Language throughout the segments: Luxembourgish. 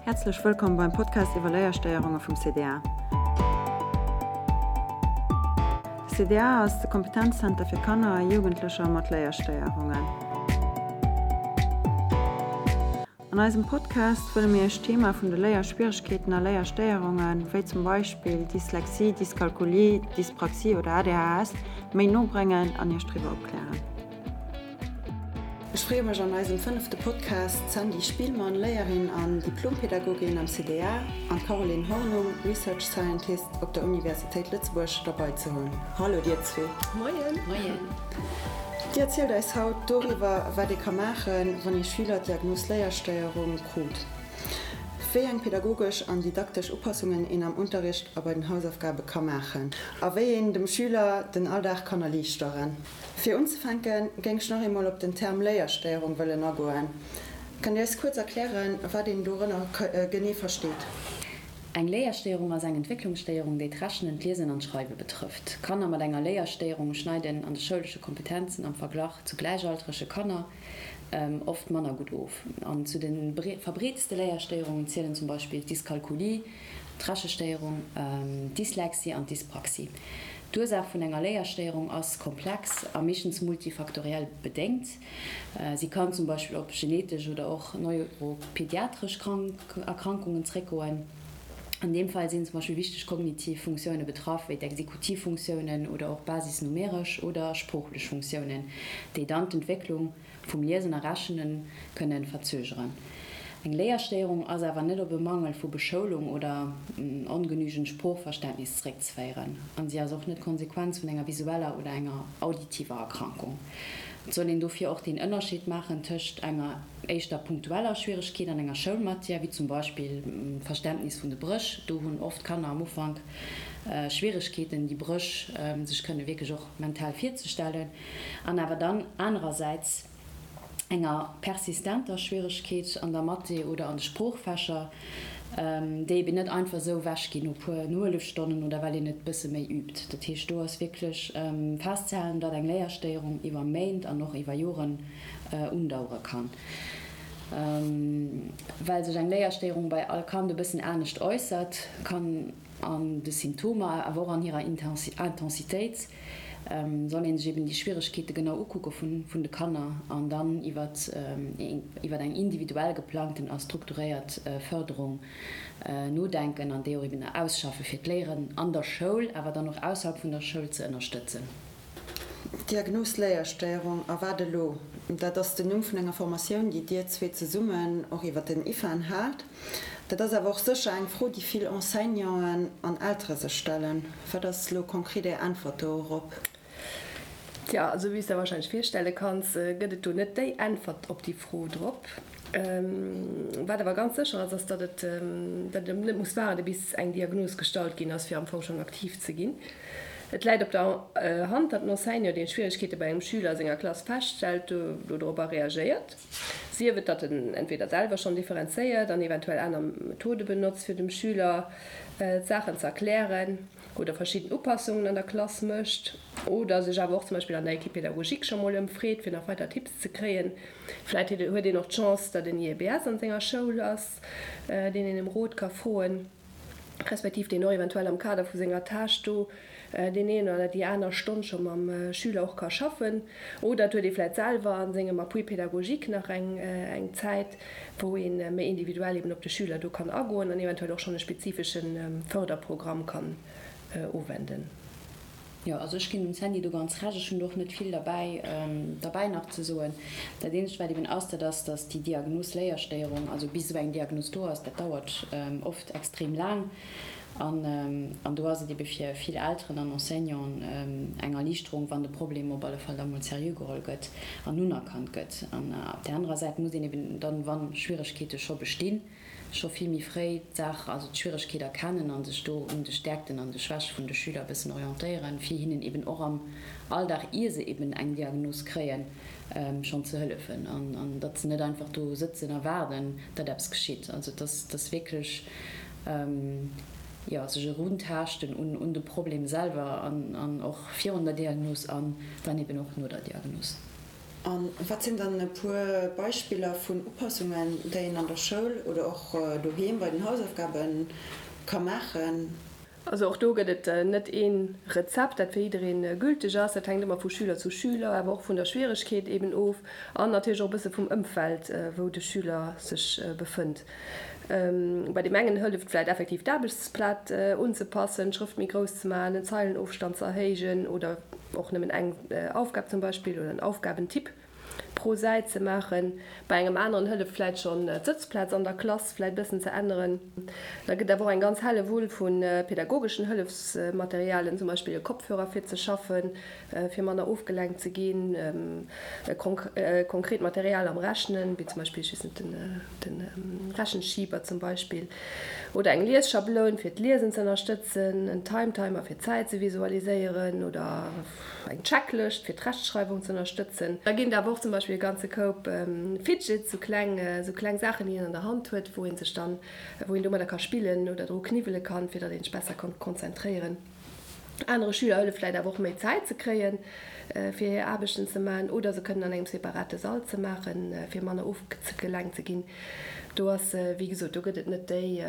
Häerzlech wëllkomm beim Podcast iwwer Léierstéierunge vum CDA. De CDA ass de Kompetenzzenter fir Kanner a Jugendlecher mat Léierstéierungen. An eisem Podcast wëlle mir Iech d'Thema vun de Léierschwieregkeeten a Léierstéierungen, wéi zum Beispill Dyslexie, Dyskalkulie, Dyspraxie oder ADHS, méi no bréngen an Iech driwwer opklären. Ech freeë mech an eisem fënnefte Podcast d'Sandy Spielmann, Léierin an Diplompädagogin am CDA, an d'Caroline Hornung, Research Scientist op der Universitéit Lëtzebuerg, derbei ze hunn. Hallo dir zwee. Moien. Moien. Dir erzielt eis haut doriwwer, wat ee ka maachen, wann ee Schüler d'Diagnos Léierstéierung krut, wéi eng pädagogesch an didaktesch Upassungen een am Unterricht a bei den Hausaufgabe ka maachen a wéi een dem Schüler den Alldag kann erliichteren. Fir unzefänke géing ech nach eemol op den Term Léierstéierung wëllen agoen. Kënnt Dir eis kuerz erklären, wat een dorënner genee versteet? Eng Léierstéierung ass eng Entwécklungsstéierung, déi d'Rechnen, d'Liesen an d'Schreiwe betrëfft. Kanner mat enger Léierstéierung schneiden an de schoulesche Kompetenzen am Verglach zu gläichaltrege Kanner oft manner gutt of. An zu de verbreetste Léierstéierungen zielen zum Beispill d'Dyskalkulie, d'Rechestéierung, d'Dyslexie an d'Dyspraxie. D'Ursaach vun enger Léierstéierung ass komplex a meeschtens multifaktoriell bedéngt. Si kann zum Beispill op genetesch oder och neuropediatresch Erkrankungen zréckgoen. An deem Fall sinn zum Beispill wichteg kognitiv Funktioune betraff, wéi d'Exekutivfunktiounen oder och basisnumeresch oder sproochlech Funktiounen, déi dann d'Entwécklung vum Liesen a Rechnen kënnen verzögeren. Eng Léierstéierung ass awer net op e Mangel vu Beschoulung oder ongenügend Sproochverständnis zeréckzeféieren an si ass och net d'Konsequenz vun enger visueller oder enger auditiver Erkrankung. Et soll een dofir och deen Ënnerscheed maachen tëscht enger éischter punktueller Schwieregkeet an enger Schoulmatière, wéi zum Beispill d'Verständnis vun de Bréch. Do hunn oft Kanner am Ufank Schwieregkeeten, déi Bréch sech kënne wierklech och mental virzestellen. An awer dann anerersäits enger persistenter Schwieregkeet an der Mathé oder an de Sproochfächer, déi eben net einfach esou ewechginn no puer Nohëllefstonnen oder well een et bësse méi übt. Dat heescht, do ass wierklech festzehalen, datt eng Léierstéierung iwwer Méint an och iwwer Joren undauere kann. Well sech eng Léierstéierung bei all Kand e bëssen anescht äussert, kann an de Symptomer, awer och an hirer Intensitéit, soll ee sech eben déi Schwieregkeete genau ukucke vun de Kanner an dann iwwer eng individuell geplangten a strukturéiert Fërderung nodenken an déi och eben ausschaffe fir d'Léieren an der Schoul, awer dann och ausserhalb vun der Schoul ze ënnerstëtzen. D'Diagnos Léierstéierung, a wat elo? Dat ass den Numm vun enger Formatioun, déi Dir zwee zesummen och iwwer den IFAN haalt. Dat ass awer och sécher eng Fro, déi vill Enseignanten an Eltere sech stellen. Wat ass elo konkret Är Äntwert dorop? Tja, also wéi s der wahrscheinlech virstelle kanns, gëtt et do net déi Äntwert op déi Fro drop. Wat awer ganz sécher ass, ass, datt et datt een net muss waarde bis eng Diagnos gestallt ginn ass, fir am Fong schonn aktiv ze ginn. Et läit op der Hand, datt en Enseignant, deen Schwieregkeete bei engem Schüler a senger Klass feststellt, dodropper reagéiert. Sief et, datt en entweder selwer schonn differenzéiert an eventuell aner Methode benotzt, fir dem Schüler d'Saachen ze erklären, oder verschidden Upassungen an der Klass mécht, oder sech awer och zum Beispill an der Équipe pédagogique scho mol ëmfreet, fir nach weider Tipps ze kréien. Vläit huet een och d'Chance, datt en IEBS an senger Schoul ass, deen een ëm Rot ka froen. respektiv deen och eventuell am Kader vu senger Tâche do deen een oder déi aner Stonn scho mam Schüler och ka schaffen. Oder et huet ee vläicht selwer a sengem Appui pédagogique nach eng eng Zäit, wou ee méi individuell eben op de Schüler do kann agoen an eventuell och schonn e spezifesche Förderprogramm kann uwenden. Jo, also ech ginn dem Sandy do ganz Recht. Ech hunn do och net vill derbäi derbäi nach ze soen. Dat eenzegt, wat eben ass, dat ass, datt déi Diagnos Léierstéierung, also bis esou eng Diagnos do ass, dat dauert oft extrem laang. An an do ass et ebe fir vill Elteren an Enseignanten eng Erliichterung, wann de Problem op alle Fall da mol seriö geholl gëtt an unerkannt gëtt. An op där anerer Säit muss een eben dann, wa Schwieregkeete scho bestinn, scho vill méi fréi d'Saach, also d'Schwieregkeet erkennen a sech do un de Stäerkten an de Schwäche vun de Schüler e bëssen orientéieren, fir hinnen eben och am Alldag, ier se eben eng Diagnos kréien, schonn ze hëllefen an datt se net einfach do sëtzen a waarden, datt eppes geschitt. Also dass dass wierklech, jo, sech eruntaaschten un un de Problem selwer an an och virun der Diagnos an dann eben och no der Diagnos. A wat sinn dann e puer Beispiller vun Upassungen, déi een an der Schoul oder och doheem bei den Hausaufgabe ka maachen? Also och do gëtt et net ee Rezept, dat fir jidderee gülteg ass. Dat hänkt ëmmer vu Schüler zu Schüler, awer och vun der Schwieregkeet eben of an natierlech och e bësse vum Ëmfeld, wou de Schüler sech befënnt. Bei deem engen hëlleft vläicht effektiv d'Aarbechtsblat unzepassen, d'Schrëft méi grouss ze maachen, den Zeilenofstand ze erhéijen oder och nëmmen eng Aufgab zum Beispill oder en Aufgabentyp pro Säit ze maachen. Bei engem aneren hëlleft vläit schonn d'Sëtzplaz an der Klass vläit bëssen ze änneren. Da gëtt awer och eng ganz Hellewull vu pedagogeschen Hëllefsmaterialien, zum Beispill e Kopfhörer fir ze schaffen, fir manner ofgelenkt ze ginn, konkret Material am Rechnen, wéi zum Beispill, ech weess net, de Rechenschieber zum Beispill, oder eng Liesschabloun fir d'Liesen ze ënnerstëtzen, en Timetimer fir d'Zäit ze visualiséieren oder eng Checklëscht fir d'Rechtschreiwung ze ënnerstëtzen. Da ginn et awer och zum Beispill e ganze Koup Fidgets, sou kleng, sou kleng Saachen, déi een an der Hand huet, wou ee sech dann, wou een domadder ka spillen oder dru kniwwele kann, fir datt een sech besser kann konzentréieren. Anere Schüler hëlleft vläit awer och méi Zäit ze kréien, fir hir Aarbechten ze maachen oder se kënnen an engem separate Sall ze maachen, fir manner ofgelenkt ze ginn. Do ass, wéi gesot, do gëtt et net déi,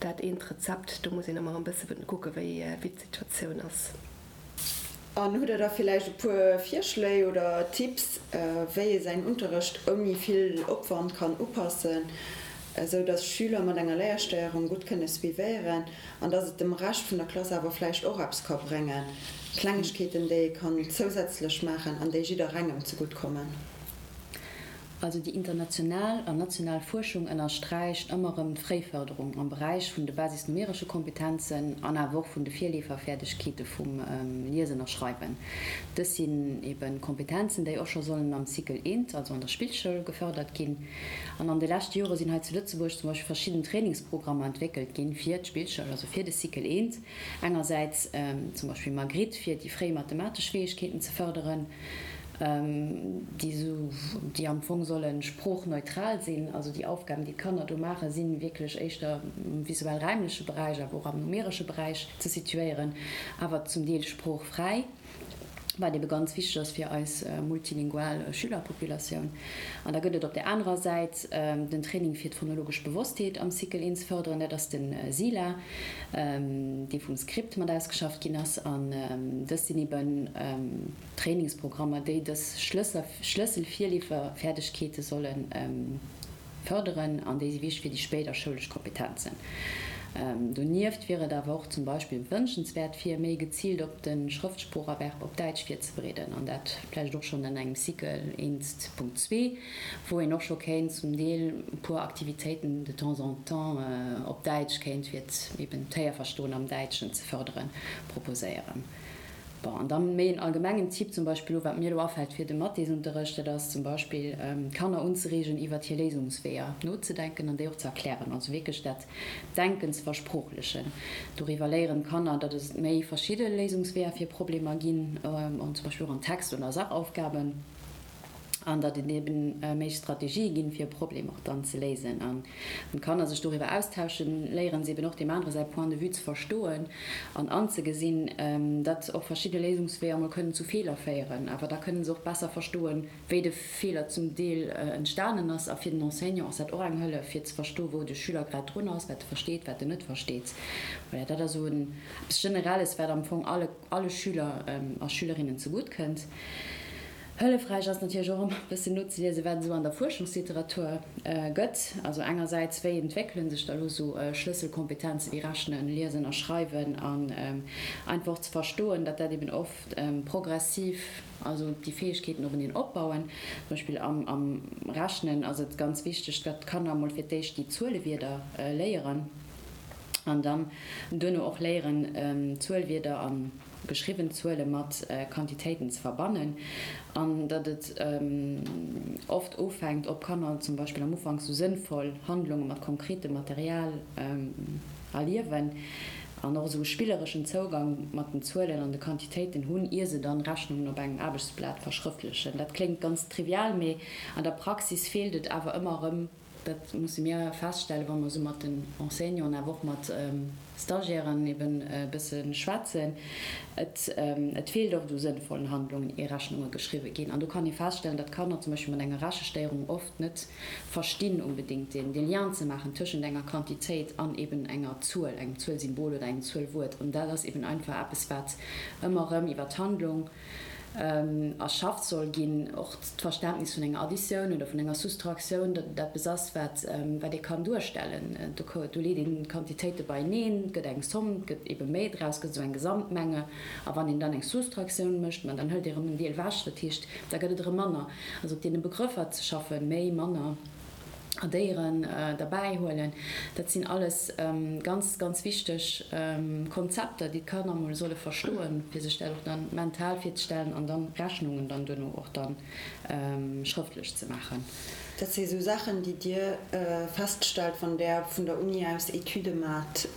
dat eent Rezept, do muss een ëmmer e bësse kucke wéi d'Situatioun ass. An hutt Der da villäicht e puer Virschléi oder Tipps, wéi ee säin Unterrecht ouni vill Opwand kann upassen, esou dass Schüler mat enger Léierstéierung gutt kënne suivéieren an dass et dem Rescht vun der Klass awer vläicht och eppes ka bréngen? Klengegkeeten, déi ee kann zousätzlech maachen an déi jidderengem zegutt kommen. Also déi international an national Fuerschung ënnersträicht ëmmer erëm d'Fréifërderung am Beräich vun de basisnumeresche Kompetenzen an awer och vun de Virleeferfäerdegkeete vum Liesen a Schreiwen. Dës sinn ebe Kompetenzen, déi och scho sollen am Cycle I, also an der Spillschoul, gefërdert ginn. An an de leschte Jore sinn hei zu Lëtzebuerg zum Beispill verschidden Trainingsprogrammer entwéckelt ginn fir d'Spillschoul, also fir de Cycle I. Engersäits zum Beispill Magritte, fir déi fréi mathematesch Fäegkeeten ze fërderen. déi esou, déi am Fong solle sproochneutral sinn, also déi Aufgaben, déi d'Kanner do maachen, si wierklech éischter am visuell-räimleche Beräich, awer och am numeresche Beräich ze situéieren, awer zum Deel sproochfräi, wat ebe ganz wichteg ass fir eis multilingual Schülerpopulatioun. An da gëtt et op där anerer Säit den Training fir d'phonologesch Bewosstheet am Cycle I ze fërderen, dat ass de SILA, dee vum Script mat ausgeschafft ginn ass. An dës sinn eben Trainingsprogrammer, déi dës Schlësselvirleeferfäerdegkeete solle fërderen an déi si wichteg fir déi spéider schoulesch Kompetenzen. Donieft wier et awer och zum Beispill wënschenswäert, fir méi geziilt op de Schrëftsproocherwerb op Däitsch virzebereeden, an dat vläicht och schonn an engem Cycle 1.2, wou een och scho kéint zum Deel e puer Aktivitéiten de temps en temps op Däitsch kéint, fir eben d'Héierverstoen am Däitschen ze fërderen, proposéieren. Bon, an dann méi en allgemengen Tipp zum Beispill elo, wat mir elo afält fir de Mathesunterrecht, dat ass zum Beispill d'Kanner unzereegen iwwert hir Léisungsweeër nozedenken an déi och ze erklären, also wierklech dat Denken ze versproochlechen. Doriwwer léieren d'Kanner, datt et méi verschidde Léisungsweeër fir Problemer ginn, zum Beispill och an Text oder Sachaufgaben. An datt et eben méi Strategië ginn, fir e Problem och dann ze léisen. A wann d'Kanner sech doriwwer austauschen, léieren se eben och deem anere säi Point de vue ze verstoen an anzegesinn, datt och verschidde Léisungsweeër emol kënnen zu Feeler féieren. Awer da kënnen se och besser verstoen, wéi de Feeler zum Deel entstanen ass. A fir den Enseignant ass dat och eng Hëllef, fir ze verstoen, wou de Schüler grad drun ass, wat e versteet, wat en net versteet. Voilà, dat ass esou eppes Generelles, wat am Fong alle, alle Schüler a Schülerinnen zegutt kënnt. Hëllefräich ass natierlech och ëmmer e bëssen nozeliesen, wat et esou an der Fuerschungsliteratur gëtt. Also engersäits, wéi entwéckele sech da elo esou Schlësselkompetenze wéi Rechnen, Liesen a Schreiwen an einfach och ze verstoen, datt dat eben oft progressiv, also déi Fäegkeeten openeen opbauen. Zum Beispill am Rechnen ass et ganz wichteg, datt d'Kanner emol fir d'éischt déi Zuelewierder léieren an dann duerno och léieren, Zuelwierder an. geschriwwen Zuele mat Quantitéiten ze verbannen an datt et oft ofhänkt, ob Kanner zum Beispill am Ufank sou sënnvoll Handlunge mat konkretem Material erliewen an och esou e spillereschen Zougang mat den Zuelen an de Quantitéiten hunn, ier se dann Rechnungen op engem Aarbechtsblat verschrëftlechen. Dat kléngt ganz trivial, mee an der Praxis feelt et awer ëmmer erëm. dat musse mir feststellen, wa mer esou mat den Enseignanten, awer och mat Stagiairen eben e bësse schwätzen, et et feelt oft u sënnvollen Handlungen, ier Rechnunge geschriwwe ginn. An do kann ee feststellen, datt Kanner zum Beispill mat enger Rechestéierung oft net verstinn onbedéngt deen dee Lien ze maachen tëschent enger Quantitéit an eben enger Zuel, engem Zuelsymbol oder engem Zuelwuert. An dat ass eben einfach eppes, wat ëmmer erëm iwwer d'Handlung erschafft soll ginn, och d'Verständnis vun enger Additioun oder vun enger Soustraktioun, datt et eppes ass, wat wat ee kann duerstellen. Do do leet een d'Quantitéite beieneen, et gëtt eng Somm, et gëtt ebe méi draus, gëtt esou eng Gesamtmenge. A wann een dann eng Soustraktioun mécht, ma dann hëlt ee erëm en Deel ewech, dat heescht, da gëtt et erëm manner. Also op deene Begrëffer ze schaffen, méi, manner. Addéieren derbäi huelen. Dat sinn alles ganz, ganz wichteg Konzepter, déi d'Kanner emol solle verstoen, fir sech dat och dann mental virzestellen an dann Rechnungen dann duerno och dann schrëftlech ze maachen. Dat si sou Saachen, déi Dir feststellt, wann Der vun der Uni aus Etüde maacht?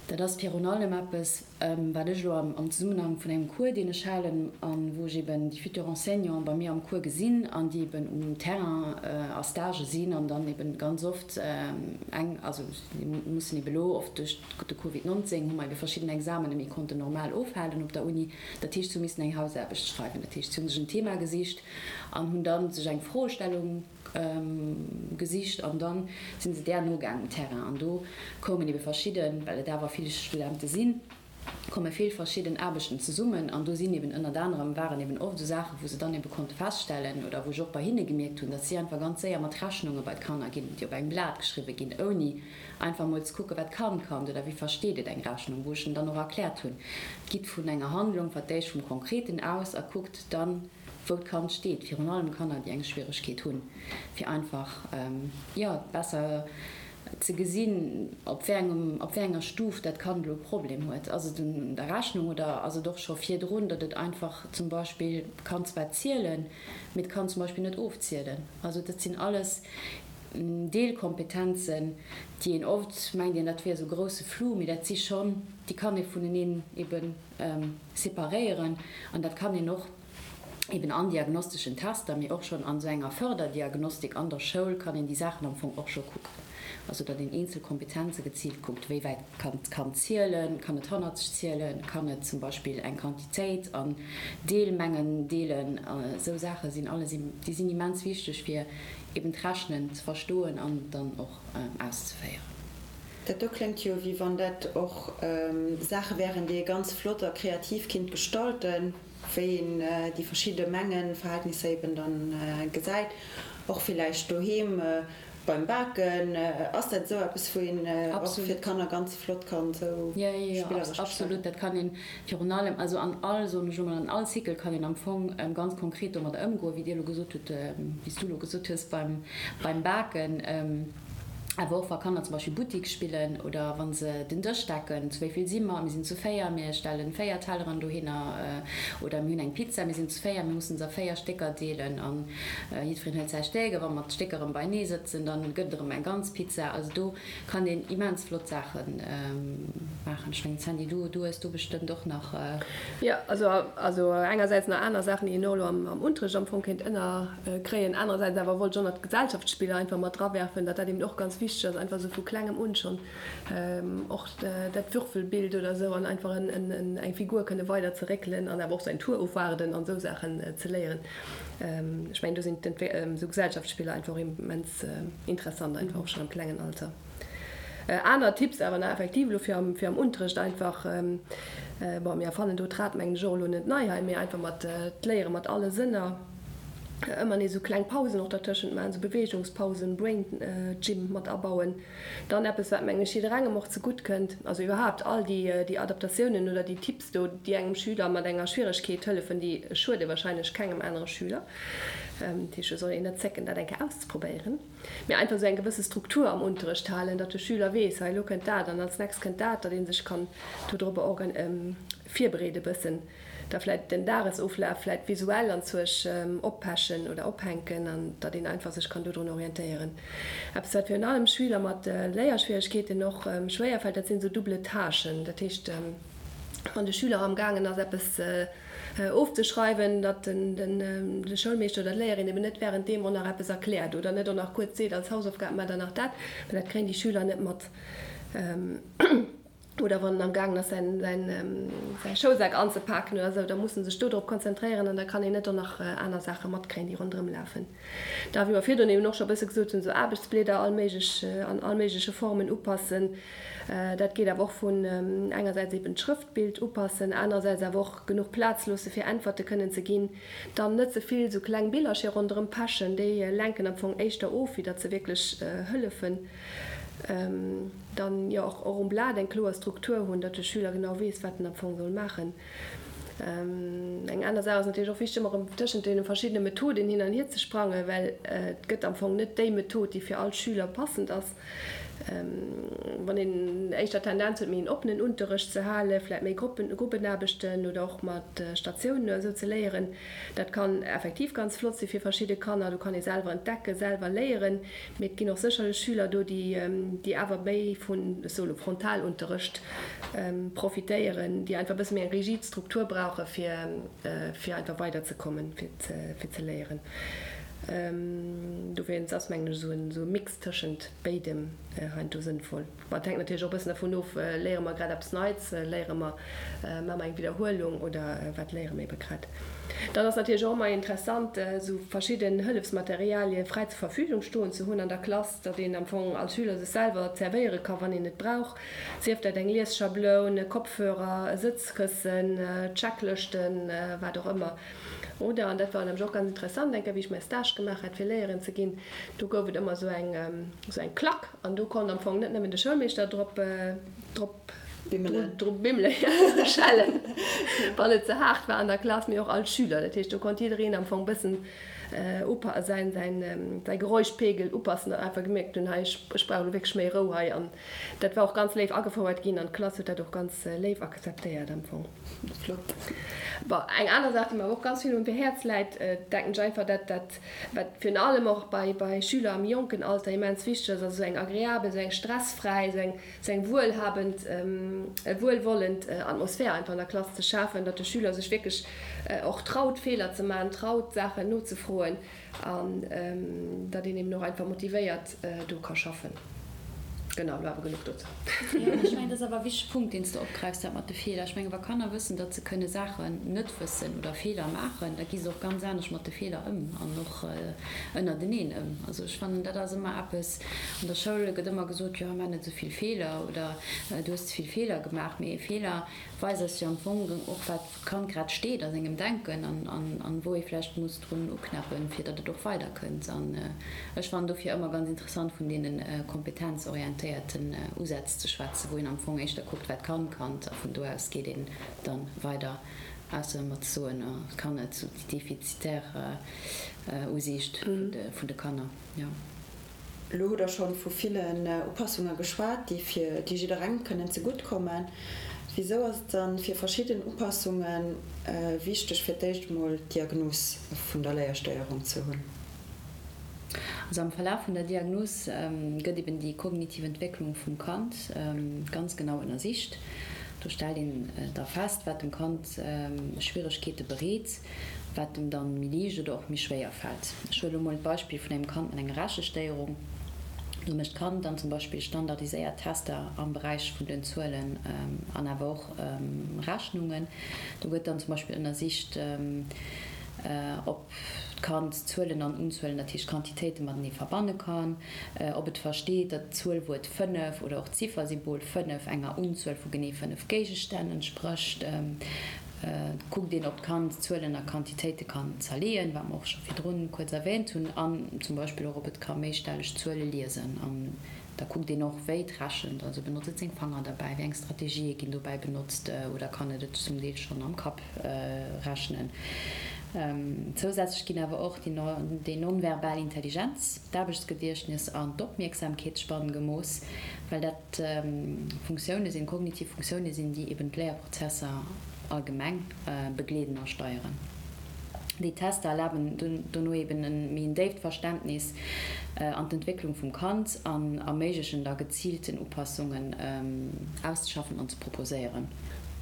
Dat ass virun allem eppes, Wat ech elo am Zesummenhang vun engem Cours, deen ech halen, a wou ech eben déi futurs Enseignants bei mir am Cours gesinn an déi eben um Terrain a Stagë sinn an dann eben ganz oft eng, also déi mussen eben elo oft duerch de Covid 19 hu mer ebe verschidden Examene méi konnten normal ofhalen op der Uni. Dat heescht, si hu missen eng Hausaarbecht schreiwen. Dat heescht, si hu sech en Thema gesicht an hunn da sech eng Froestellung gesicht an dann sinn se där nogaang um Terrain an do koumen ebe verschidden, well et awer vill Studente sinn, komme vill verschidden Aarbechten zesummen an do sinn eben ënnert anerem, waren eben oft esou Saachen, wou se dann ebe konnte feststellen oder wou ech och bei hinne gemierkt hunn, datt si einfach ganz séier mat Rechnunge bei d'Kanner ginn, déi op engem Blat geschriwwe ginn, ouni einfach emol ze kucken, wat kann d'Kand oder wéi versteet et eng Rechnung, wou ech en dann och erkläert hunn, gitt vun enger Handlung, vertéischt vum Konkreten aus a kuckt dann, wou d'Kand steet, virun allem Kanner, déi eng Schwieregkeet hunn, fir einfach, jo, besser ze gesinn, op wéi engem, op wéi enger Stuf dat Kand elo e Problem huet. Ass et un der Rechnung oder ass et och scho virdrun, datt et einfach zum Beispill kann zwar zielen, mee et kann zum Beispill net ofzielen. Also dat sinn alles Deelkompetenzen, déi een oft mengt een, dat wier esou grousse Flou, mee dat si schonn, déi kann ee vuneneen eben separéieren an dat kann een och eben an diagnosteschen Tester, mee och schonn an esou enger Förderdiagnostik an der Schoul kann een déi Saachen am Fong och scho kucken. Also datt een eenzel Kompetenze geziilt kuckt, wéi wäit kann d'Kand zielen, kann et hannerzeg zielen, kann et zum Beispill eng Quantitéit an Deelmengen deelen. Esou Saache sinn alles, déi sinn immens wichteg fir eben d'Rechnen ze verstoen an dann och auszeféieren. Dat do kléngt jo, wéi wann dat och Saache wären, déi ee ganz flott a kreativ kinnt gestalten, wéi een déi verschidde Mengenverhältnisser eben dann gesäit, och villäicht doheem beim Baken. Ass dat esou eppes, wou een och fir d'Kanner ganz flott kann esou spilleresch gestalten? Absolut, dat kann een virun allem, also an all, soen ech emol, an all Cycle kann een am Fong ganz konkret domadder ëmgoen, wéi Dir elo gesot hutt, wéi s du elo gesot hues beim Baken. Awer och wa Kanner zum Beispill Buttik spillen oder wa se den Dësch decken, zu wéi vill si mer? Mir sinn zu 4, mir stellen 4 Telleren dohinner. Oder mir hunn eng Pizza, mir sinn zu 4, mir mussen se a 4 Stécker deelen a jiddwereen hëlt säi Stéck. A wa mer d'Stécker erëm beienee sëtzen, da gëtt et erëm eng ganz Pizza. Also do kann een immens flott Saache maachen. Ech mengen, Sandy, du hues do bestëmmt och nach. Jo, also engersäits nach aner Saachen, déi een och elo am Unterrecht am Fong kéint ënner. Kréien. Anerersäits awer wollt ech och nach d'Gesellschaftsspiller einfach mat drawerfen, datt dat eben och ganz wichteg ass, einfach esou vu klengem un schonn och dat Würfelbild oder esou an einfach eng Figur kënne weider ze réckelen an awer och säin Tour ofwaarden an esou Saachen ze léieren. Ech mengen do sinn esou Gesellschaftsspiller einfach och immens interessant, einfach och schonn am klengen Alter. Aner Tipps awer nach effektiv elo fir am, fir am Unterrecht einfach, bon mir erfannen do d'Rad mengen ech och elo net nei hei, mee einfach mat d'Léiere mat alle Sënner, ëmmer nees esou kleng Pausen och dertëschent maachen, esou Beweegungspausen, Brain Gym mat abauen. Dann eppes wat mengen ech jidderengem och zegutt kënnt, also iwwerhaapt all déi déi Adaptatiounen oder déi Tipps do, déi engem Schüler mat enger Schwieregkeet hëllefen, déi schuede wahrscheinlech kengem anere Schüler. Dat heescht, et soll een net zécken dat eng Kéier auszeprobéieren. Mee einfach esou eng gewësse Struktur am Unterrecht halen, datt de Schüler weess, hei elo kënnt dat an als nächst kënnt dat, datt ee sech kann dodropper organ virbereede bëssen, da vläit den Dagesoflaf vläit visuell anzuerch oppechen oder ophänken an datt een einfach sech kann dodrun orientéieren. Eppes wat virun allem Schüler mat Léierschwieregkeeten och schwéier fält, dat sinn esou double Tâchen. Dat heescht, wann de Schüler amgaangen ass eppes. Ofzeschreiwen, datt de Schoulmeeschter oder d'Léierin eben net wärend deem och nach eppes erkläert oder net och nach kuerz seet, als Hausaufgab maacht der nach dat, well dat kréien déi Schüler net mat. Oder wann en am gaangen ass säin säi Schoulsak anzepaken oder esou, da muss en sech do drop konzentréieren an da kann een net och nach aner Saache matkréien, déi ronderëm lafen. Da, wéi mer virdrun eben och scho e bësse gesot hunn, esou Aarbechtsblieder all méiglech an all méigleche Formen upassen. Dat geet awer och vun engersäits eben d'Schrëftbild upassen, anerersäits awer och genuch Plaz loosse fir Äntwerte kënnen ze ginn. Dann net ze vill esou kleng Billercher ronderëm pechen, déi lenken am Fong éischter of, wéi datt se wierklech hëllefen. Dann jo och um Blat eng kloer Struktur hunn, datt de Schüler genau weess, wat en am Fong soll maachen. Eng aner Saach ass natierlech och wichteg, ëmmer erëm tëschent deene verschiddene Methoden hin an hier ze sprangen, well et gëtt am Fong net déi Method, déi fir all Schüler passend ass. Wann een éischter d'Tendenz huet, méi en oppenen Unterrecht ze halen, vläicht méi Gruppen, Gruppenaarbechten oder och mat Statiounen oder esou ze léieren, dat kann effektiv ganz flott si fir verschidde Kanner. Do kann ee selwer entdecken, selwer léieren. Mee et ginn och sécherlech Schüler do, déi, déi awer méi vun, ech soe lo, Frontalunterrecht profitéieren, déi einfach e bësse méi eng rigid Struktur brauche fir, fir einfach weiderzekommen, fir ze, fir ze léieren. Dowéinst ass, mengen ech, esou en, esou e Mix tëschent béidem heiansdo sënnvoll. Bon, et hänkt natierlech och e bëssen dervun of, léiere mer grad eppes Neits, léiere mer, maache mer eng Widderhuelung oder wat léiere mer ebe grad. Dann ass natierlech och ëmmer interessant, esou verschidden Hëllefsmaterialie fräi zur Verfügung stoen ze hunn an der Klass, datt een am Fong als Schüler sech selwer zerwéiere ka wann een et brauch, sief dat eng Liesschabloun, e Kopfhörer, e Sëtzkëssen, Checklëschten, wat och ëmmer. Oder, an dat war nämlech och ganz interessant, eng Kéier wéi ech mäi Stage gemaach hat fir Léierin ze ginn, do gouf et ëmmer esou eng, esou eng Klack an do konnt am Fong net nëmmen de Schoulmeeschter drop, drop Bimmelen. Drop bimmelen, ja, schellen, wann et ze haart war an der Klass, mee och all Schüler. Dat heescht, do konnt jiddereen am Fong bëssen upa-, säin, säin, säi Geräuschpegel upassen an einfach gemierkt hunn, hei, ech, ech brauch elo wierklech méi Rou hei. An dat war och ganz léif agefouert ginn an d'Klass huet dat och ganz léif akzeptéiert am Fong. Flott. Bon, eng aner Saach, déi mer awer och ganz vill um Häerz läit, denken ech einfach, dat, dat, wat virun allem och bei, bei Schüler am jonken Alter immens wichteg ass, ass esou eng agreabel, esou eng stressfräi, esou eng, esou eng wuelhabend, wuelwollend Atmosphär einfach an der Klass ze schafen, datt de Schüler sech wierklech och traut, Feeler ze maachen, traut, Saachen nozefroen. An datt een eben och einfach motivéiert do ka schaffen. Genau, elo awer genuch dozou. Jo, mä ech mengen, dat ass awer e wichtege Punkt, deen s de opgräifs, dat mat de Feeler. Ech mengen, wa Kanner wëssen, datt se kënne Saachen net wëssen oder Feeler maachen, da gi se och ganz anescht mat de Feeler ëm an och ënnerteneen ëm. Also ech fannen, dat ass ëmmer eppes, an der Schoul gëtt ëmmer gesot, jo, maach net esou vill Feeler oder du hues ze vill Feeler gemaach. Mee e Feeler weist eis jo am Fong och, wat d'Kand grad steet a sengem Denken an wou ee vläicht muss drun uknäppen, fir datt et och weider kënnt. An ech fannen dofir ëmmer ganz interessant vun deene kompetenzorientéierten Usätz ze schwätzen, wou een am Fong éischter kuckt, wat kann d'Kand a vun do aus geet een dann weider, ausser ëmmer ze soen, oh, et kann net, sou déi defizitär Usiicht vun de Kanner, jo. Elo hutt Der schonn vu villen Upassunge geschwat, déi fir déi jidderengem kënnen zegutt kommen. Wisou ass et dann fir verschidden Upassunge wichteg, fir d'éischt emol d'Diagnos vun der Léierstéierung ze hunn? Also am Verlaf vun der Diagnos gëtt eben déi kognitiv Entwécklung vum Kand ganz genau ënnersicht. Do stellt een da fest, wat dem Kand Schwieregkeete bereet. wat em dann méi liicht oder och méi schwéier fält. Ech huele lo mol d'Beispill vun engem Kand mat enger Rechestéierung. Do mécht d'Kand dann zum Beispill standardiséiert Tester am Beräich vun den Zuelen an awer och Rechnungen. Do gëtt dann zum Beispill ënnersicht, ob d'Kand Zuelen an Unzuelen, dat heescht Quantitéite matenee verbanne kann, ob et versteet, datt d'Zuelwuert 5 oder och d'Ziffersymbol 5 enger Unzuel vu genee 5 Géigestänn entsprécht. Et kuckt een, ob d'Kand Zuelen a Quantitéite kann zerleeën, wat mer och scho virdrun kuerz erwähnt hunn, an zum Beispill och, ob et ka méistelleg Zuele liesen. An da kuckt een och, wéi et rechent, also benotzt et seng Fanger derbäi, wéi eng Strategië ginn dobäi benotzt oder kann et et zum Deel schonn am Kapp rechnen. Zousätzlech ginn awer och déi non-verbal Intelligenz, d'Aarbechtsgediechtnes an d'Opmierksamkeetsspann gemooss, well dat Funktioune sinn, kognitiv Funktioune sinn, déi eben d'Léierprozesser allgemeng begleeden a steieren. Déi Tester erlaben dono eben e méi en déift Verständnis an d'Entwécklung vum Kand an erméiglechen da geziilten Upassungen auszeschaffen an ze proposéieren.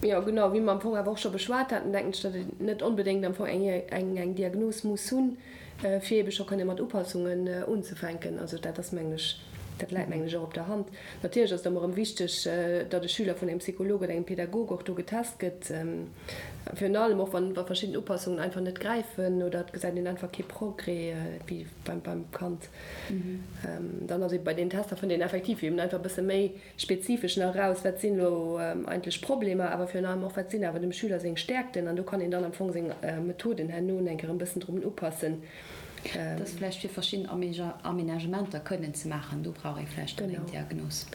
Jo, genau, wéi mer am Fong awer och scho beschwat haten, denken ech, datt een net onbedéngt am Fong eng eng Diagnos muss hunn, fir eebe scho kënne mat Upassungen unzefänken. Also dat ass, mengen ech, dat läit, mengen ech, och op der Hand. Natierlech ass et ëmmer erëm wichteg, datt e Schüler vun engem Psycholog oder engem Pädagog och do getest gëtt, virun allem och wann verschidden Upassungen einfach net gräifen oder et gesäit een einfach kee Progrès beim Kand. Dann ass eebe bei deenen Tester fënnt een effektiv eben einfach e bësse méi spezifesch nach eraus, wat sinn elo eigentlech Problemer, awer virun allem och, wat sinn awer dem Schüler seng Stäerkten an do kann een dann am Fong seng Methoden herno eng Kéier e bëssen drun upassen. Dat ass vläicht fir verschidden Aménagementer kënnen ze maachen, do brauch ee vläicht dann eng Diagnos.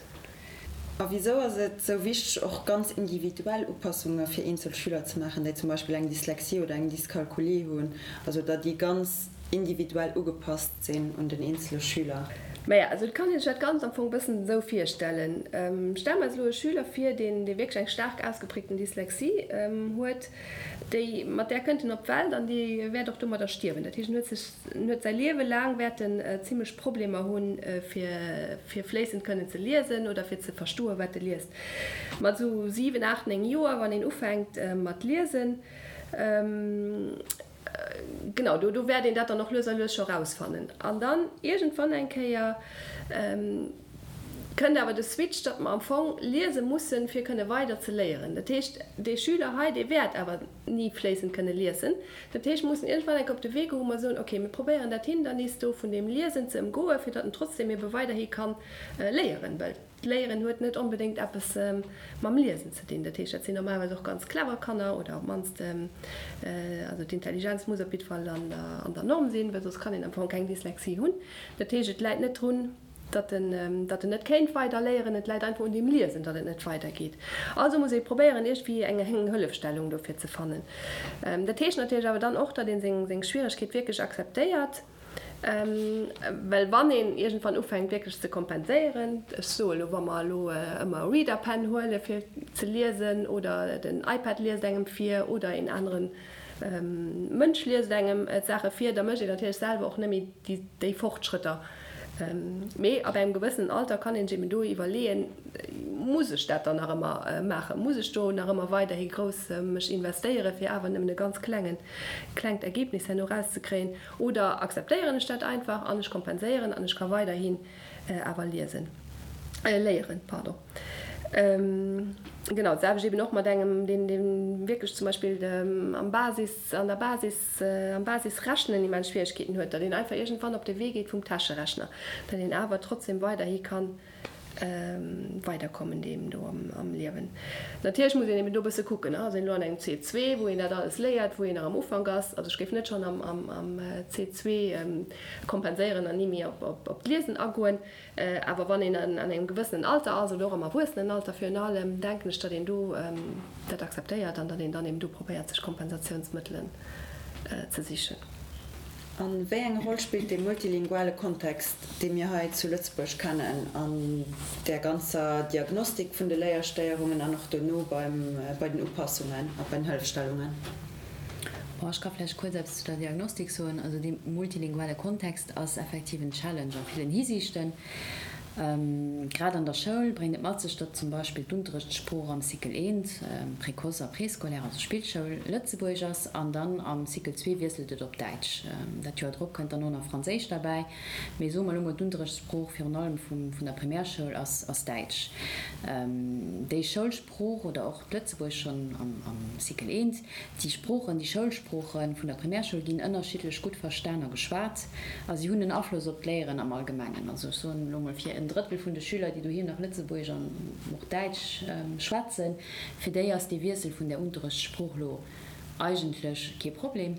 A wisou ass et sou wichteg, och ganz individuell Upassunge fir eenzel Schüler ze maachen, déi zum Beispill eng Dyslexie oder eng Dyskalkulie hunn, also datt déi ganz individuell ugepasst sinn un den eenzele Schüler? Maja, also et kann een sech dat Ganzt am Fong e bëssen esou virstellen. Stelle mer eis elo e Schüler vir, deen, dee wierklech eng staark ausgeprägten Dyslexie huet, déi, mat där kënnt en op d'Welt an dee wäert och domadder stierwen. Dat heescht, en huet sech, en huet säi Liewe laang wäert en zimlech Problemer hunn, fir, fir fléissend kënnen ze liesen oder fir ze verstoen, wat e liest. Mat esou 7, 8, 9 Joer, wann een ufänkt mat liesen, Genau, do do wäert een dat dann och lues a lues scho rausfannen. An dann iergendwann eng Kéier kënnt awer de Switch, datt mer am Fong liese mussen, fir kënne weider ze léieren. Dat heescht, dee Schüler hei, dee wäert awer ni fléissend kënne liesen. Dat heescht, mer mussen iergendwann eng Kéier op de Wee goen, wou mer soen, okay, mir probéieren dat Hindernis do vun deem Liesen ze ëmgoen, fir datt en trotzdem ebe weiderhi ka léieren. Well. D'Léieren huet net onbedéngt eppes mam Liesen ze dinn. Dat heescht, dat sinn normalerweis och ganz clever Kanner oder op d'mannst, also d'Intelligenz muss op jiddwer Fall an der Norm sinn, well soss kann een am Fong keng Dyslexie hunn. Dat heescht, et läit net drun, datt en, datt en net kéint weider léieren, et läit einfach un deem Liesen, datt et net weidergeet. Also muss ee probéieren, iergendwéi eng Hëllefstellung dofir ze fannen. Dat heescht natierlech awer dann och, datt ee seng Schwieregkeet wierklech akzeptéiert. Well wann een iergendwann ufänkt wierklech ze kompenséieren, ech soe elo, wa mer elo ëmmer e Reader Pen huele fir ze liesen oder den iPad liest engem vir oder een anere Mënsch liest engem d'Saache vir, da mécht een natierlech selwer och net méi déi Fortschrëtter. Mee ab engem gewëssenen Alter kann een sech eben do iwwerleeën, Muss ech dat dann nach ëmmer maachen? Muss ech do nach ëmmer weiderhi grouss mech investéieren, fir awer nëmmen e ganz klengen, klengt Ergebnis herno erauszekréien? Oder akzeptéieren ech dat einfach an ech kompenséieren an ech ka weiderhin awer liesen, léieren, pardon. Genau, dat selwecht eben och mat engem, deen, deen wierklech zum Beispill am Basis, an der Basis, am Basisrechnen immens Schwieregkeeten huet, datt een einfach iergendwann op de Wee geet vum Täscherechner, datt een awer trotzdem weiderhi kann weiderkommen deem do am Liewen. Natierlech muss een eben do e bësse kucken, ass een elo an engem C2, wou een dat alles léiert, wou een nach am Ufank ass. Also ech géif net schonn am C2 kompenséieren an ni méi op d'Liesen agoen. Awer wann een an engem gewëssenen Alter ass oder och am Erwuessenenalter virun allem, denken ech, datt een do dat akzeptéiert an datt een dann eben do probéiert, sech Kompensatiounsmëttelen ze sichen. A wéi eng Roll spillt dee multilinguale Kontext, dee mir hei zu Lëtzebuerg kennen, an där ganzer Diagnostik vun de Léierstéierungen an och dono beim, bei den Upassungen a bei den Hëllefstellungen? Bon, ech ka vläicht kuerz eppes zu der Diagnostik soen. Also dee multilinguale Kontext ass effektiv en Challenge a villen Hisiichten. Grad an der Schoul bréngt et mat sech, datt zum Beispill d'Unterrechtssprooch am Cycle I, Précoce a Préscolaire, also Spillschoul, Lëtzebuergesch ass an dann am Cycle ii wiesselt et op Däitsch. Dat Joer drop kënnt dann och nach Franséisch derbäi. Mee soe mer elo mol, d'Unterrechtssprooch virun allem vun der Primärschoul ass Däitsch. Déi Schoulsprooch oder och d'Lëtzebuergesch schonn am Cycle I, Déi Sproochen, déi Schoulsprooche vun der Primärschoul ginn ënnerschiddlech gutt verstan a geschwat a si hunn en Afloss op d'Léieren am Allgemengen. Also ech soen elo mol, fir en Drëttel vun de Schüler, déi doheem nach Lëtzebuergesch an och Däitsch schwätzen, fir déi ass dee Wiessel vun där Unterrechtssprooch elo eigentlech kee Problem.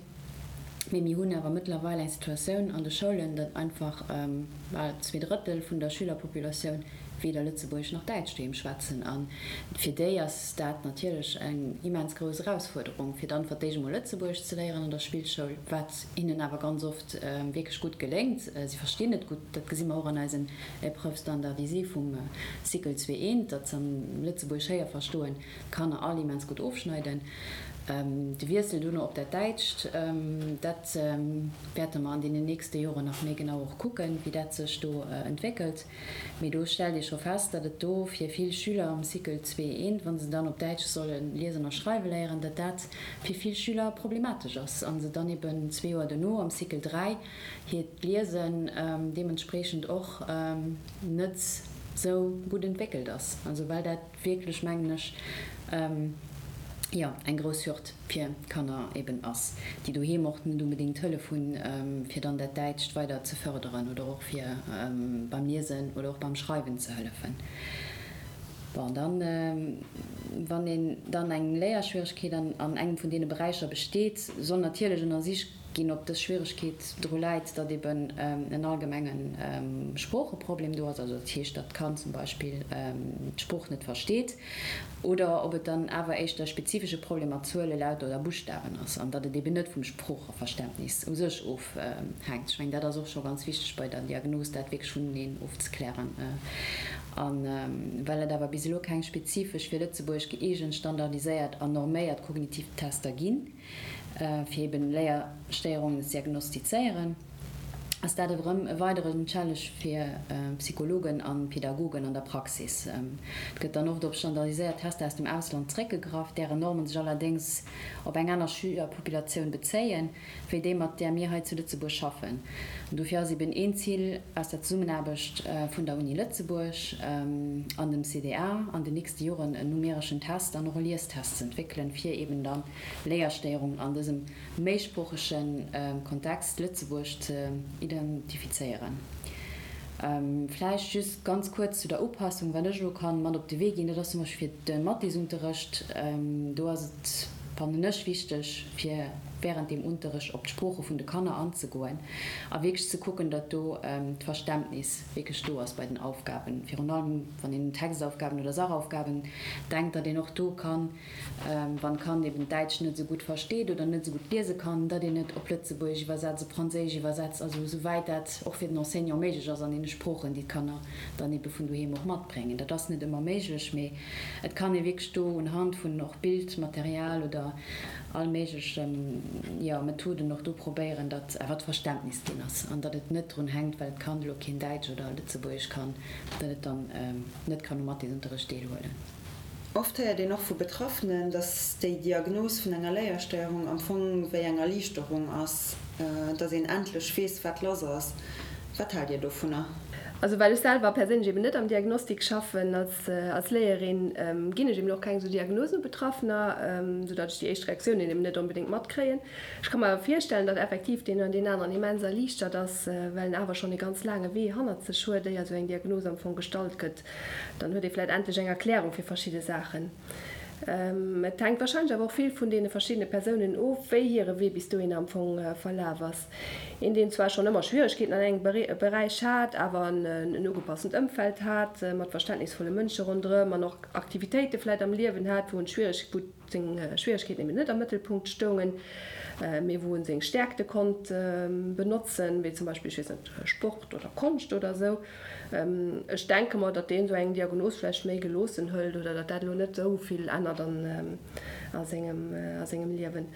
Mee mir hunn awer mëttlerweil eng Situatioun an de Schoulen, datt einfach bal 2 Drëttel vun der Schülerpopulatioun weder Lëtzebuergesch nach Däitsch doheem schwätzen. A fir déi ass dat natierlech eng immens grouss Erausfuerderung, fir dann fir d'éischt emol Lëtzebuergesch ze léieren an der Spillschoul, wat hinnen awer ganz oft wierklech gutt geléngt. Si verstinn et gutt, dat gesi mer och an eisen Épreuves standardisées vum Cycle 2 I, datt se am Lëtzebuergesch Héierverstoen d'Kanner all immens gutt ofschneiden. De Wiessel dono op dat Däitscht, dat wäerte mer an deenen nächste Joren nach méi genau och kucken, wéi dat sech do entwéckelt. Mee do stellt ee scho fest, datt et do fir vill Schüler am Cycle zwee eent, wa se dann op Däitsch solle liesen a schreiwe léieren, datt dat fir vill Schüler problematesch ass a se dann eben zwee Joer dono am Cycle 3 hiert Liesen deementspreechend och net sou gutt entwéckelt ass. Also well dat wierklech, mengen ech, jo, eng grouss Hürd fir Kanner eben ass, déi doheem och net onbedéngt Hëllef hunn, fir dann dat Däitscht weider ze fërderen oder och fir beim Liesen oder och beim Schreiwen ze hëllefen. Bon, dann, wann een dann eng Léierschwieregkeet an engem vun deene Beräicher besteet, soll natierlech ënnersicht ginn, ob dës Schwieregkeet dru läit, datt eben en allgemenge Sproocheproblem do ass, also dat heescht, datt d'Kand zum Beispill d'Sprooch net versteet, oder ob et dann awer éischter e spezifesche Problem mat Zuele, Lauter oder Buschtawen ass an datt et eben net vum Sproocheverständnis u sech ofhänkt. Ech mengen, dat ass och scho ganz wichteg bei der Diagnos, dat wierklech vuneneen ofzeklären. A well et awer bis elo keng spezifesch fir Lëtzebuerg gëeegent, standardiséiert an norméiert kognitiv Tester ginn, fir eben Léierstéierungen ze diagnostizéieren, ass dat erëm e weideren Challenge fir Psychologen a Pädagogen an der Praxis. Et gëtt dann oft op standardiséiert Tester aus dem Ausland zréckgegraff, dären Normen sech allerdéngs op eng aner Schülerpopulatioun bezéien, wéi déi mat där mir hei zu Lëtzebuerg schaffen. An dofir ass eben een Zil aus der Zesummenaarbecht vun der Uni Lëtzebuerg an dem CDA an den nächste Joren en numereschen Test an och e Liestest ze entwéckelen, fir eben dann Léierstéierungen an dësem méisproochege Kontext Lëtzebuerg ze identifizéieren. Vläicht just ganz kuerz zu der Upassung, wat ech elo kann mat op de Wee ginn, dat ass zum Beispill fir de Mathesunterrecht, do ass et, fannen ech, wichteg, fir während deem Unterrecht op d'Sprooche vun de Kanner anzegoen a wierklech ze kucken, datt do d'Verständnis wierklech do ass bei den Aufgaben, virun allem wann een un Textaufgaben oder Sachaufgaben denkt, datt een och do kann Wann d'Kand eben d'Däitsch net esou gutt versteet oder net esou gutt liese kann, datt een et op Lëtzebuergesch iwwersetzt, op Franséisch iwwersetzt, also esou wäit dat och fir den Enseignant méiglech ass an deene Sproochen, déi d'Kanner dann ebe vun doheem och matbréngen. Dat ass net ëmmer méiglech, mee et kann ee wierklech do unhand vun och Bildmaterial oder all méigleche, jo, Methoden och do probéieren, datt awer d'Verständnis ginn ass an datt et net drun hänkt, well d'Kand elo keen Däitsch oder Lëtzebuergesch kann, datt et dann net kann um Mathesunterrecht deelhuelen. Oft héiert een och vu Betraffenen, dass déi Diagnos vun enger Léierstéierung am Fong wéi eng Erliichterung ass, dass een endlech weess, wat lass ass. Wat haalt Dir dovunner? Also well ech selwer perséinlech eben net am Diagnostik schaffen als Léierin, ginn ech eben och keng esou Diagnosen u Betraffener, soudatt ech déi éischt Reaktiounen eben net onbedéngt matkréien. Ech ka mer awer virstellen, datt effektiv deen oder deen aneren immens erliichtert ass, well en awer schonn e ganz laange Wee hannert sech huet, éier esou eng Diagnos am Fong gestallt gëtt. Dann huet ee vläit endlech eng Erklärung fir verschidde Saachen. Et hänkt warscheinlech awer och vill vun deene verschiddene Persounen of, wéi hire Wee bis dohinner am Fong verlaf ass. Een, deen zwar schonn ëmmer Schwieregkeeten an engem Beräich hat, awer en ugepassent Ëmfeld hat, mat verständnisvolle Mënsche ronderëm an och Aktivitéite vläit am Liewen hat, wou en d'Schwiereg, wou seng Schwieregkeeten eben net am Mëttelpunkt stoungen, mee wou en seng Stäerkte konnt benotzen, wéi zum Beispill, ech weess net, Sport oder Konscht oder esou. Ech denke mer, datt deen esou eng Diagnos vläicht méi geloossen hëlt oder datt dat elo net esou vill ännert a sengem Liewen.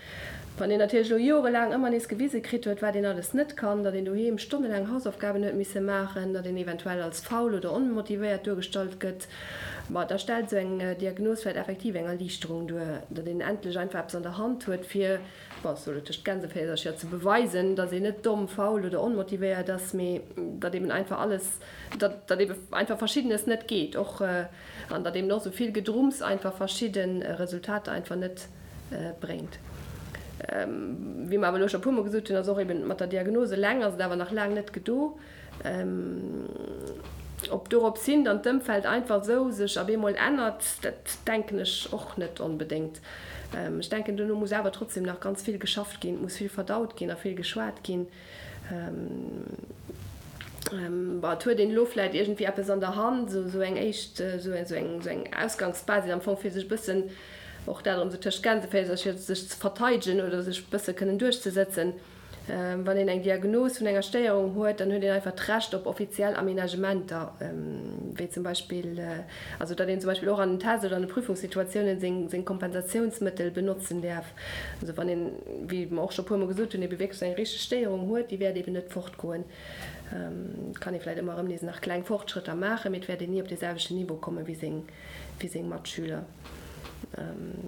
Wann een natierlech elo jorelaang ëmmer nees gewise kritt huet, wat een alles net kann, datt een doheem stonnelaang Hausaufgaben huet misse maachen, datt een eventuell als faul oder onmotivéiert duergestallt gëtt, ma da stellt esou eng Diagnos vläicht effektiv eng Erliichterung duer, datt een endlech einfach eppes an der Hand huet, fir Bon, ech soll et tëscht Gänseféisercher, ze beweisen, datt een net domm, faul oder onmotivéiert ass, mee datt eben einfach alles, datt datt ebe einfach Verschiddenes net geet och an datt eben och esou vill Gedrumms einfach verschidde Resultater einfach net bréngt. Wéi mer awer elo scho e puermol gesot hunn, ass och eben mat der Diagnos eleng ass et awer nach laang net gedo. Ob dorops hin dann d'Ëmfeld einfach esou sech ab eemol ännert, dat denken ech och net onbedéngt. Ech denken, dono muss awer trotzdem nach ganz vill geschafft ginn, et muss vill verdaut ginn a vill geschwat ginn. Bon, et huet een elo vläicht iergendwéi eppes an der Hand, esou eng éischt, esou eng Ausgangsbasis am Fong, fir sech e bëssen, och dat erëm esou tëscht Gänseféisercher, sech ze verteidegen oder sech e bësse kënnen duerchzesëtzen. Wann een eng Diagnos vun enger Stéierung huet, dann huet een einfach d'Recht op offiziell Aménagementer, wéi zum Beispill, also datt een zum Beispill och an den Test oder an de Prüfungssituatiounen seng seng Kompensatiounsmëttel benotzen däerf. Also wann een, wéi mer och scho puermol gesot hunn, ebe wierklech eng richteg Stéierung huet, déi wäert eben net fortgoen. Et kann ee vläicht ëmmer erëm nees nach kleng Fortschrëtter maachen, mee et wäert een ni op dee selwechten Niveau komme wéi seng, wéi seng Matschüler.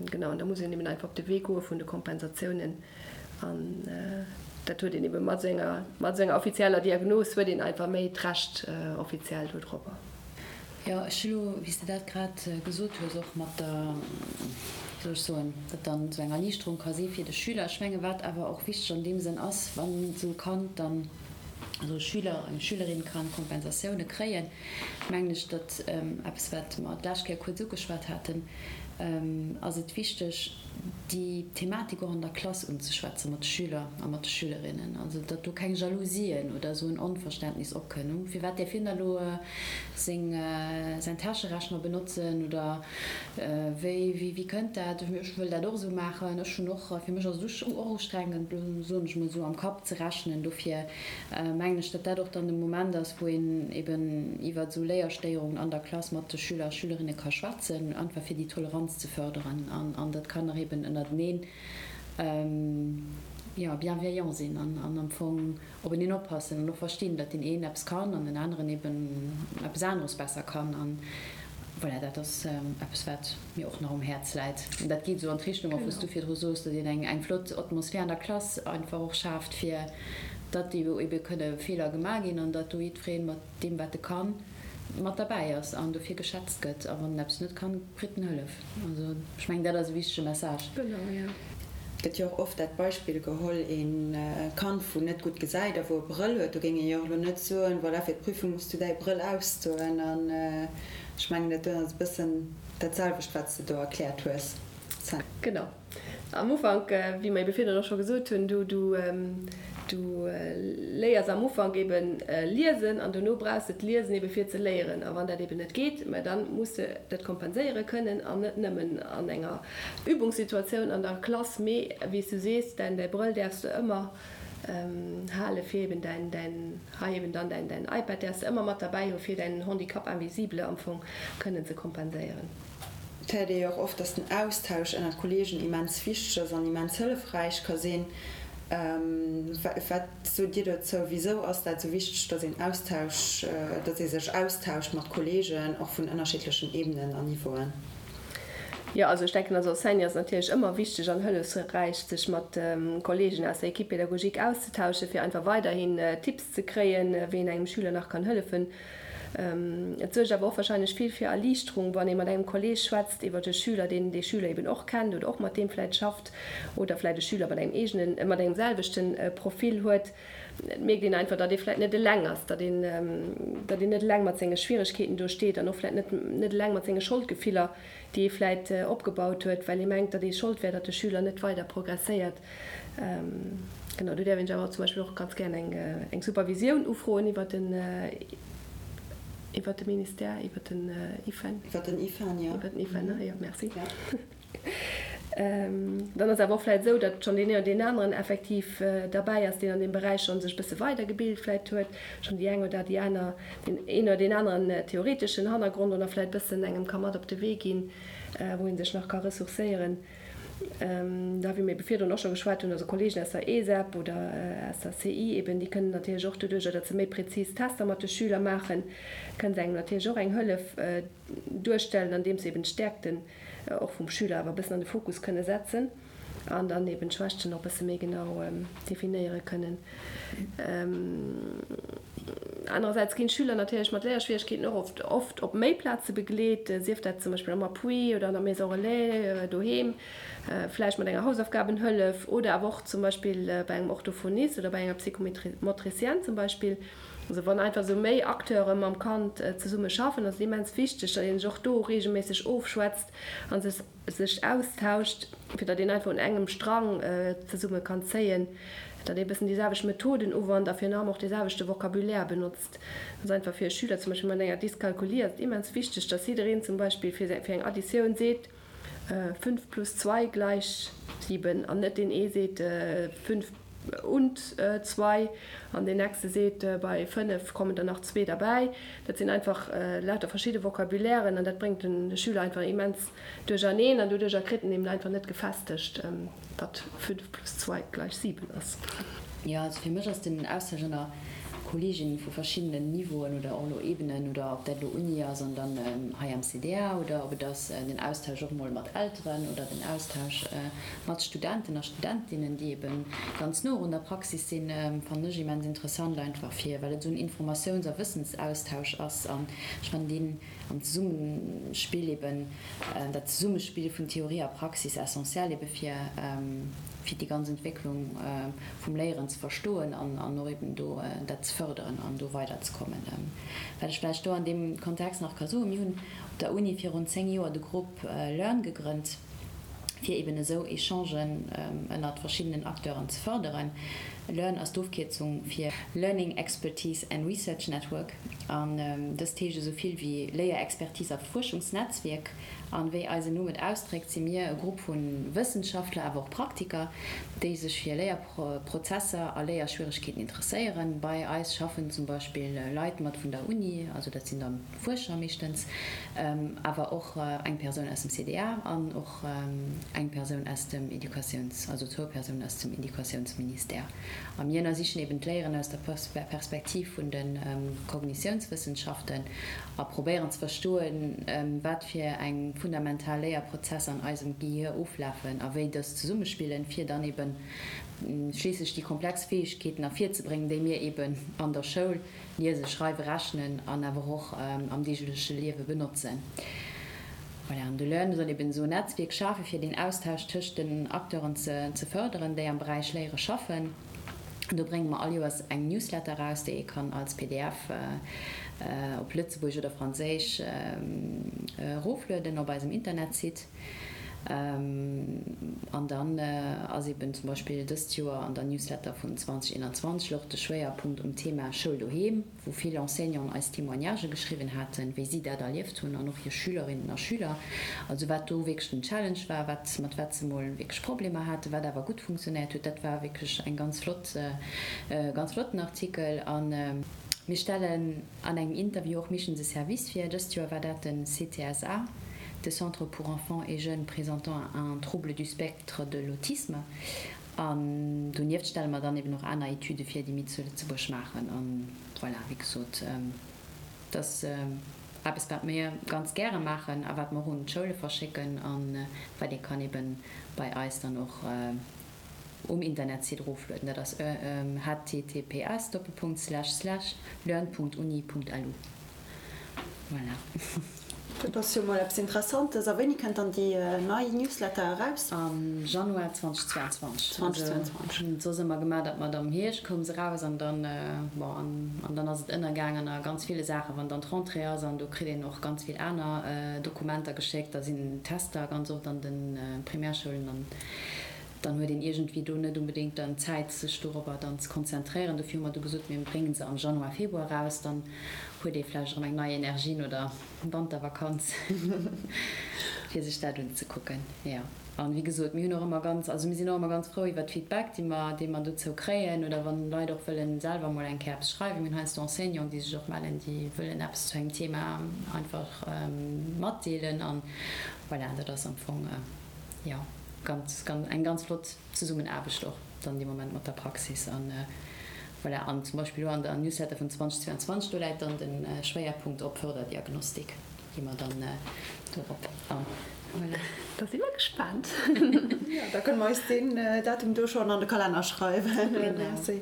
Genau, an da muss een eben einfach op de Wee goe vun de Kompensatiounen. An dat huet een ebe mat esou enger, mat esou enger offizieller Diagnos huet een einfach méi d'Recht offiziell dodropper. Jo, ech hu lo, wéi s de dat grad gesot hues, och mat der, wéi soll ech soen, datt dann esou eng Erliichterung ka si fir de Schüler. Ech menge wat awer och wichteg an deem Sënn ass, wann esou e Kand dann, also e Schüler, eng Schülerin ka Kompensatioune kréien, mengen ech, datt eppes wat mer d'lescht Kéier kuerz ugeschwat haten, ass et wichteg, déi Thematik och an der Klass unzeschwätze mat de Schüler a mat de Schülerinnen, also datt do keng Jalousien oder esou en Onverständnis opkënn, firwat däerf hien da lo seng säin Täscherechner benotzen oder wéi wéi kënnt dat, ech wëll dat och esou maachen, ech hunn och, fir mech ass et och ustrengend, soen ech mol esou, am Kapp ze rechnen. Dofir mengen ech, datt dat och dann de Moment ass, wou een eben iwwert esou Léierstéierungen an der Klass mat de Schüler a Schülerinne ka schwätzen, einfach fir déi Toleranz ze förderen an datt d'Kanner eben ënnerteneen, jo, bienveillant sinn an am Fong openeen oppassen an och verstinn, datt deen een eppes kann an den aneren eben eppes aneres besser kann. An voilà, dat ass eppes, wat mir och nach um Häerz läit. An dat geet esou an d'Richtung och, wou s du virdru soos, datt een eng flott Atmosphär an der Klass einfach och schaaft, fir datt ebe kënne Feeler gemaach ginn an datt do jiddweree mat deem, wat e kann, mat derbäi ass an dofir geschätzt gëtt. A wann en eppes net kann, kritt en Hëllef. Also ech mengen, dat ass e wichtege Message. Genau, jo. Et gëtt jo och oft dat Beispill geholl, ee Kand, wou net gutt gesäit a wou e Brëll huet, do géing ee jo och elo net soen, voilà, fir d'Prüfung muss du däi Brëll ausdoen. An ech mengen, dat do ass e bëssen dat selwecht, wat s de do erkläert hues, Sam. Genau. Am Ufank, wéi mer ebe virdrun och scho gesot hunn, du, du, du léiers am Ufank eben liesen an dono brauchs de d'Liesen ebe fir ze léieren. A wann dat eben net geet, mä da muss de dat kompenséiere kënnen an net nëmmen an enger Übungssituatioun an der Klass, mee wéi s du sees, däin, däi Brëll däerfs de ëmmer hale fir eben däin, däin, hei eben dann däin, däin iPad däerfs de ëmmer mat derbäi hu fir däin Handicap invisible am Fong kënnen ze kompenséieren. Et héiert ee jo och oft, dass den Austausch ënnert Kolleegen immens wichteg ass an immens hëllefräich ka sinn. Wat sot Dir dozou? Wisou ass dat esou wichteg, dass een Austausch, dass ee sech austauscht mat Kolleegen, och vun ënnerschiddlechen Ebenen an Niveauen? Jo, also ech denken, als Enseignant ass et natierlech ëmmer wichteg an hëllefsräich, sech mat Kolleegen aus der Équipe pédagogique auszetauschen, fir einfach weiderhin Tipps ze kréien, wéi een engem Schüler nach kann hëllefen. Et suergt awer och wahrscheinlech vill fir Erliichterung, wann ee mat engem Kolleeg schwätzt iwwert e Schüler, deen dee Schüler eben och kennt oder och mat deem vläicht schafft oder vläicht e Schüler mat engem eegenen, mat engem selwechte Profil huet. Et mierkt een einfach, datt ee vläicht net eleng ass, datt een, datt een net eleng mat senge Schwieregkeeten do steet an och vläicht net, net eleng mat senge Scholdgefiller, déi ee vläicht opgebaut huet, well ee mengt, datt ee Schold wär, datt de Schüler net weider progresséiert. Genau, do däerf een sech awer zum Beispill och ganz gären eng, eng Supervisioun ufroen iwwer den, iwwer de Ministère, iwwer den IFEN. Iwwer den IFEN, jo. Iwwer den IFEN, ne? Jo, merci. Dann ass awer och vläicht esou, datt schonn deen een oder deen aneren effektiv derbäi ass, deen an deem Beräich schonn sech e bësse weidergebilt vläicht huet, schonn déi eng oder déi aner, deen een oder deen aneren theoreteschen Hannergrond oder vläicht e bëssen engem ka mat op de Wee ginn, wou ee sech nach ka ressourcéieren. Da wéi mir ebe virdrun och scho geschwat hunn, also Kolleegen aus der ESEP oder aus der CI eben, déi kënnen natierlech och doduerjer, datt se méi prezis Tester mat de Schüler maachen, kënnen se engem natierlech och eng Hëllef duerstellen, andeems se eben d'Stäerkten och vum Schüler awer e bëssen an de Fokus kënne setzen an dann eben d'Schwächten och e bësse méi genau definéiere kënnen. Anerersäits ginn d'Schüler natierlech mat Léierschwieregkeeten och oft oft op méi Plaze begleet, sief dat zum Beispill am Appui oder an der Maison Relais, doheem, vläicht mat enger Hausaufgabenhëllef oder awer och zum Beispill bei engem Orthophonist oder bei enger Psychomotricienne zum Beispill. Also wann einfach esou méi Acteure mam Kand zesumme schaffen, ass et immens wichteg, datt ee sech och do reegelméisseg ofschwätzt a sech sech austauscht, fir datt een einfach un engem Strang zesumme kann zéien, datt ee bëssen déi selwecht Methoden uwannt a virun allem och dee selwechte Vocabulaire benotzt. Dat ass einfach fir e Schüler zum Beispill mat enger Dyskalkulie ass et immens wichteg, datt jiddereen zum Beispill fir fir eng Additioun seet, 5 plus 2 gleich 7 an net deen ee seet 5. und zwei an deen nächste seet, bei fënnef kommen der nach zwee derbäi. Dat sinn einfach lauter verschidde Vocabulairen an dat bréngt de Schüler einfach immens duercherneen an doduercher kritt en eben einfach net gefestegt, datt fünf plus zwei gleich sieben ass. Jo, also fir mech ass den Austausch ënner Kolleeginnen vu verschiddenen Niveauen oder och elo Ebenen oder ob dat elo Uni ass an dann hei am CDA oder ob et ass den Austausch och mol mat Elteren oder den Austausch mat Studenten a Studentinnen, déi ebe ganz no un der Praxis sinn, fannen ech immens interessant einfach fir, well et esou en Informatiouns a Wëssensaustausch ass an ech fannen deen am Zesummespill eben, dat Zesummespill vun Theorie a Praxis essentiell ebe fir fir déi ganz Entwécklung vum Léieren ze verstoen an an och eben do dat ze fërderen an do weiderzekommen. Wat ech vläicht do an deem Kontext nach ka soen, Mir hunn op der Uni virun 10 Joer de Grupp Learn gegrënnt, fir eben esou Echangen ënnert verschiddenen Acteuren ze fërderen. Learn ass d'Ofkierzung fir Learning Expertise and Research Network an dëst heescht esou vill wéi Léierexpertise a Fuerschungsnetzwierk. An wéi eisen Numm et ausdréckt, si mir e Grupp vu Wëssenschaftler, awer och Praktiker, déi sech fir Léierprozesser a Léierschwieregkeeten interesséieren. Bei eis schaffen zum Beispill Leit mat vun der Uni, also dat sinn dann Fuerscher meeschtens, awer och eng Persoun aus dem CDA an och eng Persoun aus dem Educatiouns-, also zwou Persounen aus dem Educatiounsministère. A mir ënnersichen eben d'Léieren aus der Perspektiv vun de Kognitiounswëssenschaften a probéieren ze verstoen, wat fir eng fundamental Léierprozesser an eisem Gehier oflafen a wéi dës zesummespillen, fir dann eben schliisslech déi komplex Fäegkeeten ervirzebréngen, déi mir eben an der Schoul Liese, schreiwe, rechnen an awer och am deegleche Liewe benotzen. Voilà, an de Learn soll eben esou en Netzwierk schafe fir deen Austausch tëscht den Acteuren ze fërderen, déi am Beräich Léiere schaffen. Do brénge mer all Joers eng Newsletter eraus, déi ee kann als pdf op Lëtzebuergesch oder Franséisch eroflueden op eisem Internetsite. An dann ass eben zum Beispill dëst Joer an der Newsletter vun 2021 louch de Schwéierpunkt um Thema Schoul doheem, wou vill Enseignanten eis Témoignagë geschriwwen haten, wéi si dat erlieft hunn an och hir Schülerinnen a Schüler. Also wat do wierklech den Challenge war, wat, mat wat se mol wierklech Problemer haten, wat awer gutt funktionéiert huet, dat war wierklech eng ganz flott, e ganz flotten Artikel. A mir stellen An engem Interview och meeschtens e Service vir. Dëst Joer war dat de CTSA, de Centre pour enfants et jeunes présentant un trouble du spectre de l'autisme. An donieft stelle mer dann eben och aner Etüde vir, déi mir zu Lëtzebuerg maachen. An voilà, wéi gesot, dat ass eppes, wat mir ganz gäre maachen a wat mer och un d'Schoule verschécken a wat ee kann eben bei eis dann och um Internetsite eroflueden. Dat ass https Doppelpunkt Slash Slash learn Punkt uni Punkt lu. Voilà. Dat ass jo mol eppes Interessantes. A wéini kënnt dann déi nei Newsletter eraus? Am Januar 2022. 2022. Hunn et soss ëmmer gemaach, datt mer am Hierscht koum se eraus an dann, bon, an dann ass et ënnergaang an a ganz ville Saachen, wann dann d'Rentrée ass an do kritt een och ganz vill aner Dokumenter geschéckt, da sinn Tester ganz oft an de Primärschoulen an Dann huet een iergendwéi do net unbedéngt dann d'Zäit, sech dorobber dann ze konzentréieren. Dofir hu mer du gesot, mir bréngen se am Januar, Februar eraus. Dann huet ee vläicht erëm eng nei Energie no der Wantervakanz, fir sech dat unzekucken. Jo, an wéi gesot, mir hunn och ëmmer ganz, also mir sinn och ëmmer ganz frou iwwert Feedback, déi mer, dee mer dozou kréien oder wann Leit och wëllen selwer mol eng Kéier eppes schreiwen. Mir hunn heiansdo Enseignanten, déi sech och mellen, déi wëllen eppes zu engem Thema einfach matdeelen. An voilà, dat ass am Fong, jo. Ganz, ganz, eng ganz flott Zesummenaarbecht och dann dee Moment mat der Praxis an voilà. An zum Beispill elo an der Newsletter vun 2022, do läit dann de Schwéierpunkt op Förderdiagnostik, gi mer dann dorop an. Voilà. Da si mer gespaant. Jo, da kënne mer eis deen Datum do schonn an de Kalenner schreiwen. Merci.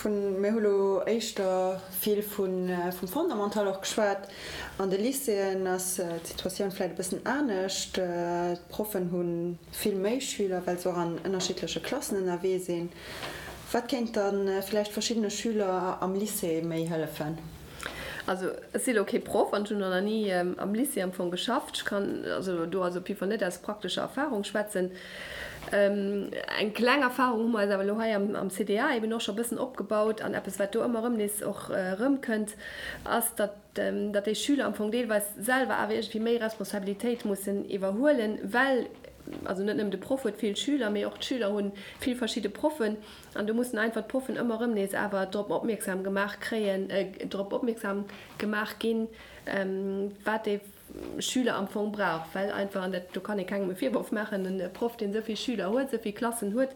Vun, mir hu lo éischter vill vun, vum Fondamental och geschwat. An de Lycéeën ass d'Situatioun vläicht e bëssen anescht. D'Proffen hu vill méi Schüler, well se och an ënnerschiddleche Klassen ënnerwee sinn. Wat kéint da vläicht verschiddene Schüler am Lycée méi hëllefen? Also ech si lo kee Proff an ech hunn och nach ni am Lycée am Fong geschafft. Ech kann also do also op jidde Fall net aus praktescher Erfahrung schwätzen. Eng kleng Erfahrung hu mer eis awer elo hei am CDA eben och scho e bëssen opgebaut an eppes wat do ëmmer erëm nees och erëmkënnt, ass, datt datt déi Schüler am Fong deelweis selwer awer iergendwéi méi Responsabilitéit mussen iwwerhuelen, well. also net nëmmen de Proff huet vill Schüler, mee och d'Schüler hu vill verschidde Proffen an do mussen einfach d'Proffen ëmmer erëm nees awer drop opmierksam gemaach kréien, drop opmierksam gemaach ginn, wat dee Schüler am Fong brauch, well einfach, an dat do kann ee kengem e Virworf maachen, e Proff, deen esou vill Schüler huet, esou vill Klassen huet,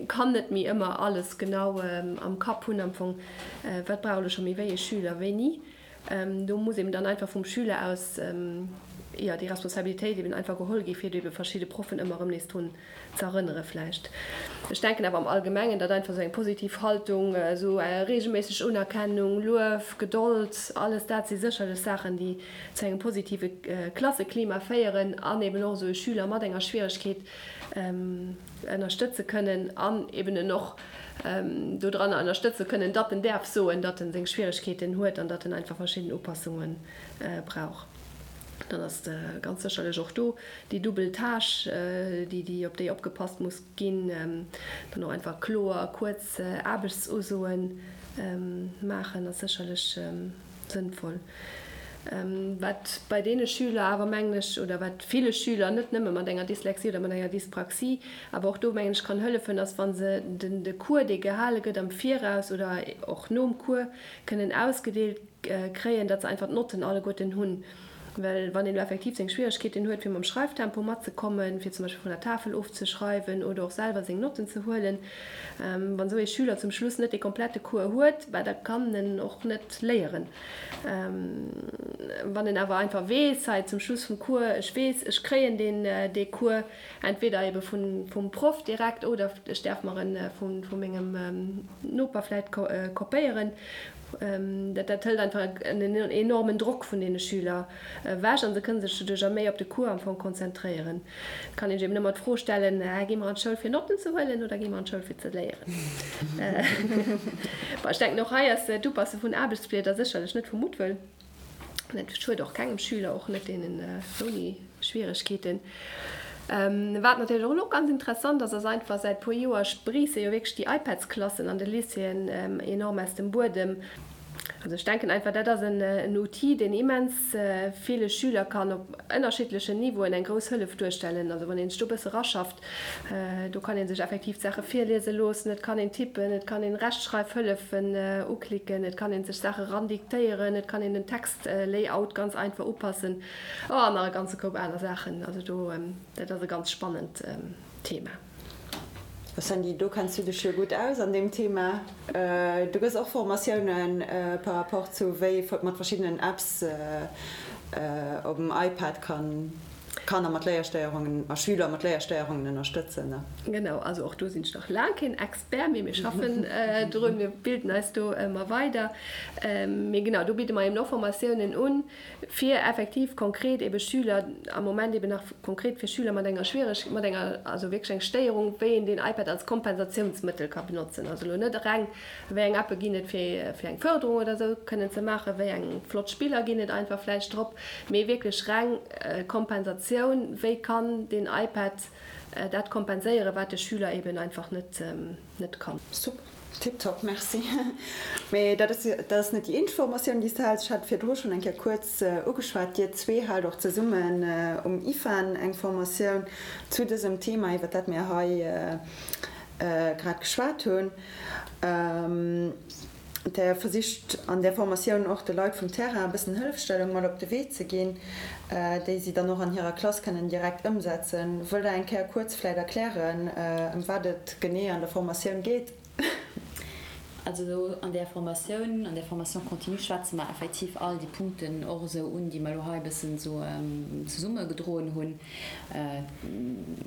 kann net méi ëmmer alles genau am Kapp hunn am Fong, wat brauch elo scho méi wéi ee Schüler wéini. Do muss eben dann einfach vum Schüler aus, jo, déi Responsabilitéit eben einfach geholl gi fir ebe verschidde Proffen ëmmer erëm nees drun ze erënnere vläicht. Ech denken awer am Allgemengen, datt einfach esou eng positiv Haltung, esou reegelméisseg Unerkennung, Luef, Gedold, alles dat si sécherlech Saachen, déi zu engem positive Klasseklima féieren an eben och esou e Schüler mat enger Schwieregkeet ënnerstëtze kënnen an eben en och dodranner ënnerstëtze kënnen, datt en däerf soen, datt en seng Schwieregkeeten huet an datt en einfach verschidden Upassunge brauch. Dann ass ganz sécherlech och do déi dubbel Tâche, déi, déi, op déi opgepasst muss ginn, dann och einfach kloer, kuerz Aarbechtsusoe maachen, ass sécherlech sënnvoll. Wat bei deene Schüler awer, mengen ech, oder wat ville Schüler, net nëmme mat enger Dyslexie oder mat enger Dyspraxie, awer och do, mengen ech, kann hëllefen, ass, wa se den de Cours, dee gehale gëtt am Viraus oder och nom Cours, kënnen ausgedeelt kréien, datt se einfach d'Notten alleguerten hunn. Well wann een elo effektiv seng Schwieregkeeten huet, fir mam Schreiftempo matzekommen, fir zum Beispill vun der Tafel ofzeschreiwen oder och selwer seng Notten ze huelen, wann esou ee Schüler zum Schluss net dee komplette Cours huet, bah, da kann en och net léieren. Wann en awer einfach weess, hei zum Schluss vum Cours, ech weess, ech kréien deen, dee Cours entweder ebe vun, vum Proff direkt oder ech däerf mer en vu, vu mengem Noper vläit kopéieren, Dat dat hëlt einfach en enormen Drock vun deene Schüler ewech a se kënne sech doduercher méi op de Cours am Fong konzentréieren. Et kann een sech eben ëmmer d'Fro stellen, Gi mer an d'Schoul fir Notten ze huelen oder gi mer an d'Schoul fir ze léieren? Bon, ech denken och hei ass d'Upasse vun Aarbechtsblieder sécherlech net vu Muttwëll. Dat schued och kengem Schüler, och net deenen ouni Schwieregkeeten. Wat natierlech och elo ganz interessant ass, ass einfach, säit puer Joer spriisse jo wierklech déi iPads-Klassen an de Lycéeën enorm aus dem Buedem. Also ech denken einfach, dat ass en Outil, deen immens ville Schüler kann op ënnerschiddlechen Niveauen eng grouss Hëllef duerstellen. Also wann ee sech do e bësse raschaft, Do kann ee sech effektiv d'Saache virliese loossen, et kann een tippen, et kann een Rechtschreifhëllefen uklicken, et kann ee sech Saache randiktéieren, et kann een den Textlayout ganz einfach upassen, oh an nach e ganze Koup aner Saachen. Also do, dat ass e ganz spannend Thema. Sandy, do kenns du dech jo gutt aus an deem Thema. Du gëss och Formatiounen par rapport zu wéi ee mat verschiddenen Apps op dem iPad kann Kanner mat Léierstéierungen a Schüler mat Léierstéierungen ënnerstëtzen. Genau, also och do sinn ech nach laang keen Expert, mee mir schaffen drun, mir bilden eis do ëmmer weider. Mee genau, do bidde mer eben och Formatiounen un, fir effektiv konkret ebe Schüler, am Moment eben nach konkret fir Schüler mat enger schwiereg, mat enger, also wierklech eng Stéierung, wéi een den iPad als Kompensatiounsmëttel ka benotzen. Also elo net reng Wéi eng Appe ginn et fir fir eng Fërderung oder esou kënnen ze maachen, wéi eng flott Spiller ginn et einfach vläicht drop, mee wierklech reng Kompensatioun, wéi kann den iPad dat kompenséieren, wat de Schüler eben einfach net net kann. Super, tiptop, merci. Mee dat ass dat ass net déi eenzeg Formatioun, déi s de häls. Ech hat virdru schonn eng Kéier kuerz ugeschwat, dir zwee haalt och zesummen um IFAN eng Formatioun zu dësem Thema, iwwer dat mir hei grad geschwat hunn. Der versicht an där Formatioun och de Leit vum Terrain e bëssen Hëllefstellung mat op de Wee ze ginn, déi si dann och an hirer Klass kënnen direkt ëmsetzen. Wëllt Der eng Kéier kuerz vläit erklären, ëm wat et genee an der Formatioun geet? Also an där Formatioun, an där Formation continue schwätze mer effektiv all déi Punkten och esou un, déi mer elo hei e bëssen esou zesummegedroen hunn.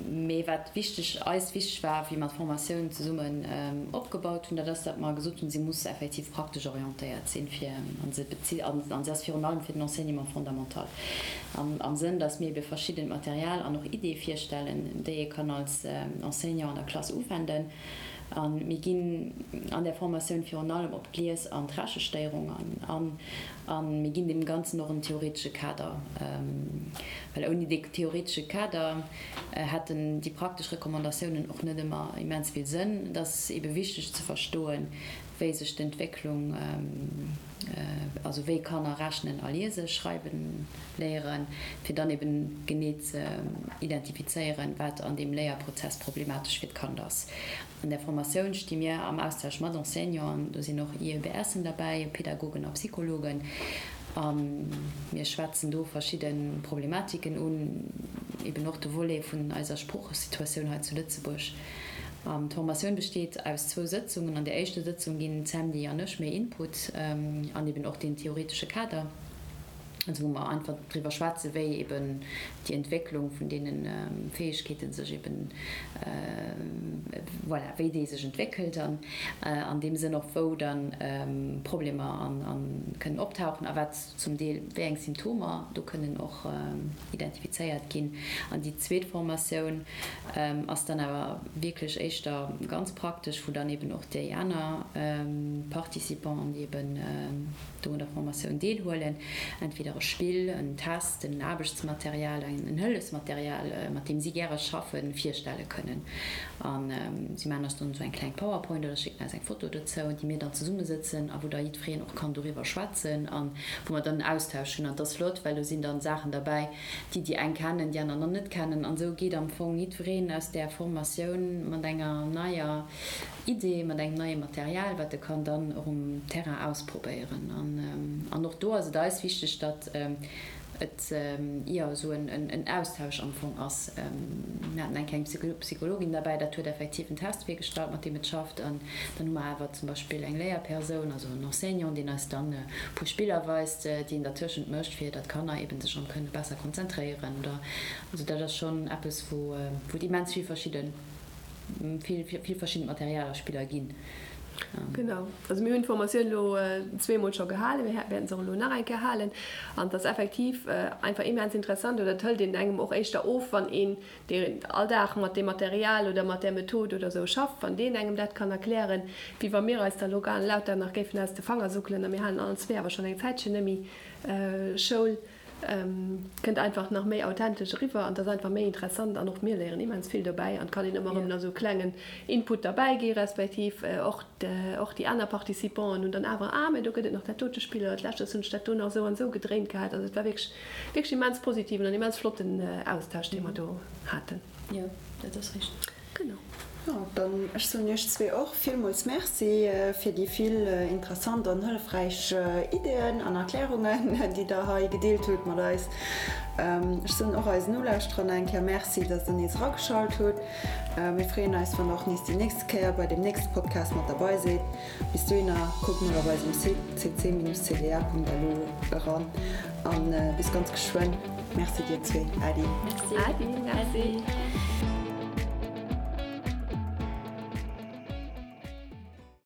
Mee wat wichteg, eis wichteg war, wéi mer d'Formatioun zesummen opgebaut hunn, dat ass, datt mer gesot hunn, si muss effektiv praktesch orientéiert sinn, fir, a se bezitt, an se ass virun allem fir den Enseignement fondamental, am Sënn, datt mir ebe verschiddent Material an och Iddie virstellen, déi ee kann als Enseignant an der Klass uwenden. A mir ginn an där Formatioun virun allem op d'Lies an d'Rechestéierung an. A mir ginn deem Ganzen och en theoretesche Kader, well ouni dee theoretesche Kader hätten déi praktesch Recommandatiounen och net ëmmer immens vill Sënn. Et ass ebe wichteg ze verstoen, wéi sech d'Entwécklung. also wéi Kanner rechnen a liese, schreiwen léieren, fir dann eben genee ze identifizéieren, wat an deem Léierprozess problematesch fir d'Kand ass. An där Formatioun sti mir am Austausch mat Enseignanten, do sinn och IEBSen derbäi, Pädagogen a Psychologen, a mir schwätzen do verschidde Problematiken un, eben och de Volet vun eiser Sproochesituatioun hei zu Lëtzebuerg. D'Formatioun besteet aus zwou Sëtzungen. An der éischter Sëtzung ginn d'Sandy an ech méi Input an eben och deen theoretesche Kader. also wou mer einfach driwwer schwätzen, wéi eben déi Entwécklung vun deene Fäegkeete sech eben, voilà, wéi déi sech entwéckelt an an deem Sënn och wou dann Problemer an kënnen optauchen a wat zum Deel wéi eng Symptomer do kënnen och identifizéiert ginn. An déi zweet Formatioun ass dann awer wierklech éischter ganz praktesch, wou dann eben och déi aner Participanten, déi eben do un der Formatioun deelhuelen, entweder e Spill, en Test, en Aarbechtsmaterial, en Hëllefsmaterial, mat deem si gäre schaffen, virstelle kënnen. A si maachen eis dann esou eng kleng Powerpoint oder schécken eis eng Foto dozou, déi mir dann zesummesëtzen a wou da jiddwereen och kann doriwwer schwätzen a wou mer dann en Austausch hunn. An et ass flott, well do sinn dann Saachen derbäi, déi déi eng kennen, déi aner nach net kennen. An esou geet am Fong jiddwereen aus där Formatioun mat enger neier Idee mat engem neie Material, wat e kann dann och um Terrain ausprobéieren. An och do ass et eis wichteg, datt et, jo, esou en Austausch am Fong ass. Mir haten eng kleng Psychologin derbäi, dat huet effektiv en Test virgestallt, mat deem et schafft. An dann hu mer awer zum Beispill eng Léierpersoun, also en Enseignant, deen eis dann e puer Spiller weist, déi een dertëschent mécht, fir datt d'Kanner eeben sech erëm kënne besser konzentréieren oder. Also dat ass schonn eppes, wou et immens vill verschidde vill vill verschidden Material a Spiller ginn. Genau, also mir hunn d'Formatioun elo zweemol scho gehalen, mir wäerten se och elo nach eng Kéier halen an et ass effektiv einfach immens interessant oder et hëlt een engem och éischter of, wann een, deen all Dag mat deem Material oder mat där Method oder esou schafft, wann deen engem dat kann erklären, wéi wa mir eis da elo lauter nach géifen aus de Fanger suckelen a mir halen allen zwee awer schonn eng Zäitchen net méi Schoul. Kënnt einfach nach méi authentesch eriwwer an et ass einfach méi interessant an och mir léieren immens vill dobäi an et kann een ëmmer erëm nach esou klengen Input derbäi gi respektiv och och déi aner Participanten hunn dann awer, ah mä do gëtt et nach dat dote Spill oder d'lescht hunn ech dat do nach esou an esou gedréint gehat. Also et war wierklech wierklech immens positiven an immens flotten Austausch dee mer do haten. Jo, dat ass richteg. Genau. Jo, dann ech soen iech zwee och villmools Merci fir déi vill interessant an hëllefräich Ideeën an Erklärungen, déi der hei gedeelt hutt mat eis. Ech soen och eisen Nolauschterer nach eng Kéier Merci, dass der nees erageschalt hutt. Mir freeën eis, wann der och nees déi nächste Kéier bei deem nächste Podcast mat derbei sidd. Bis dohinner, kuckt mol op eisem Site cc-cda.lu eran an bis ganz geschwënn. Merci dir zwee. Äddi. Merci. Äddi. Merci.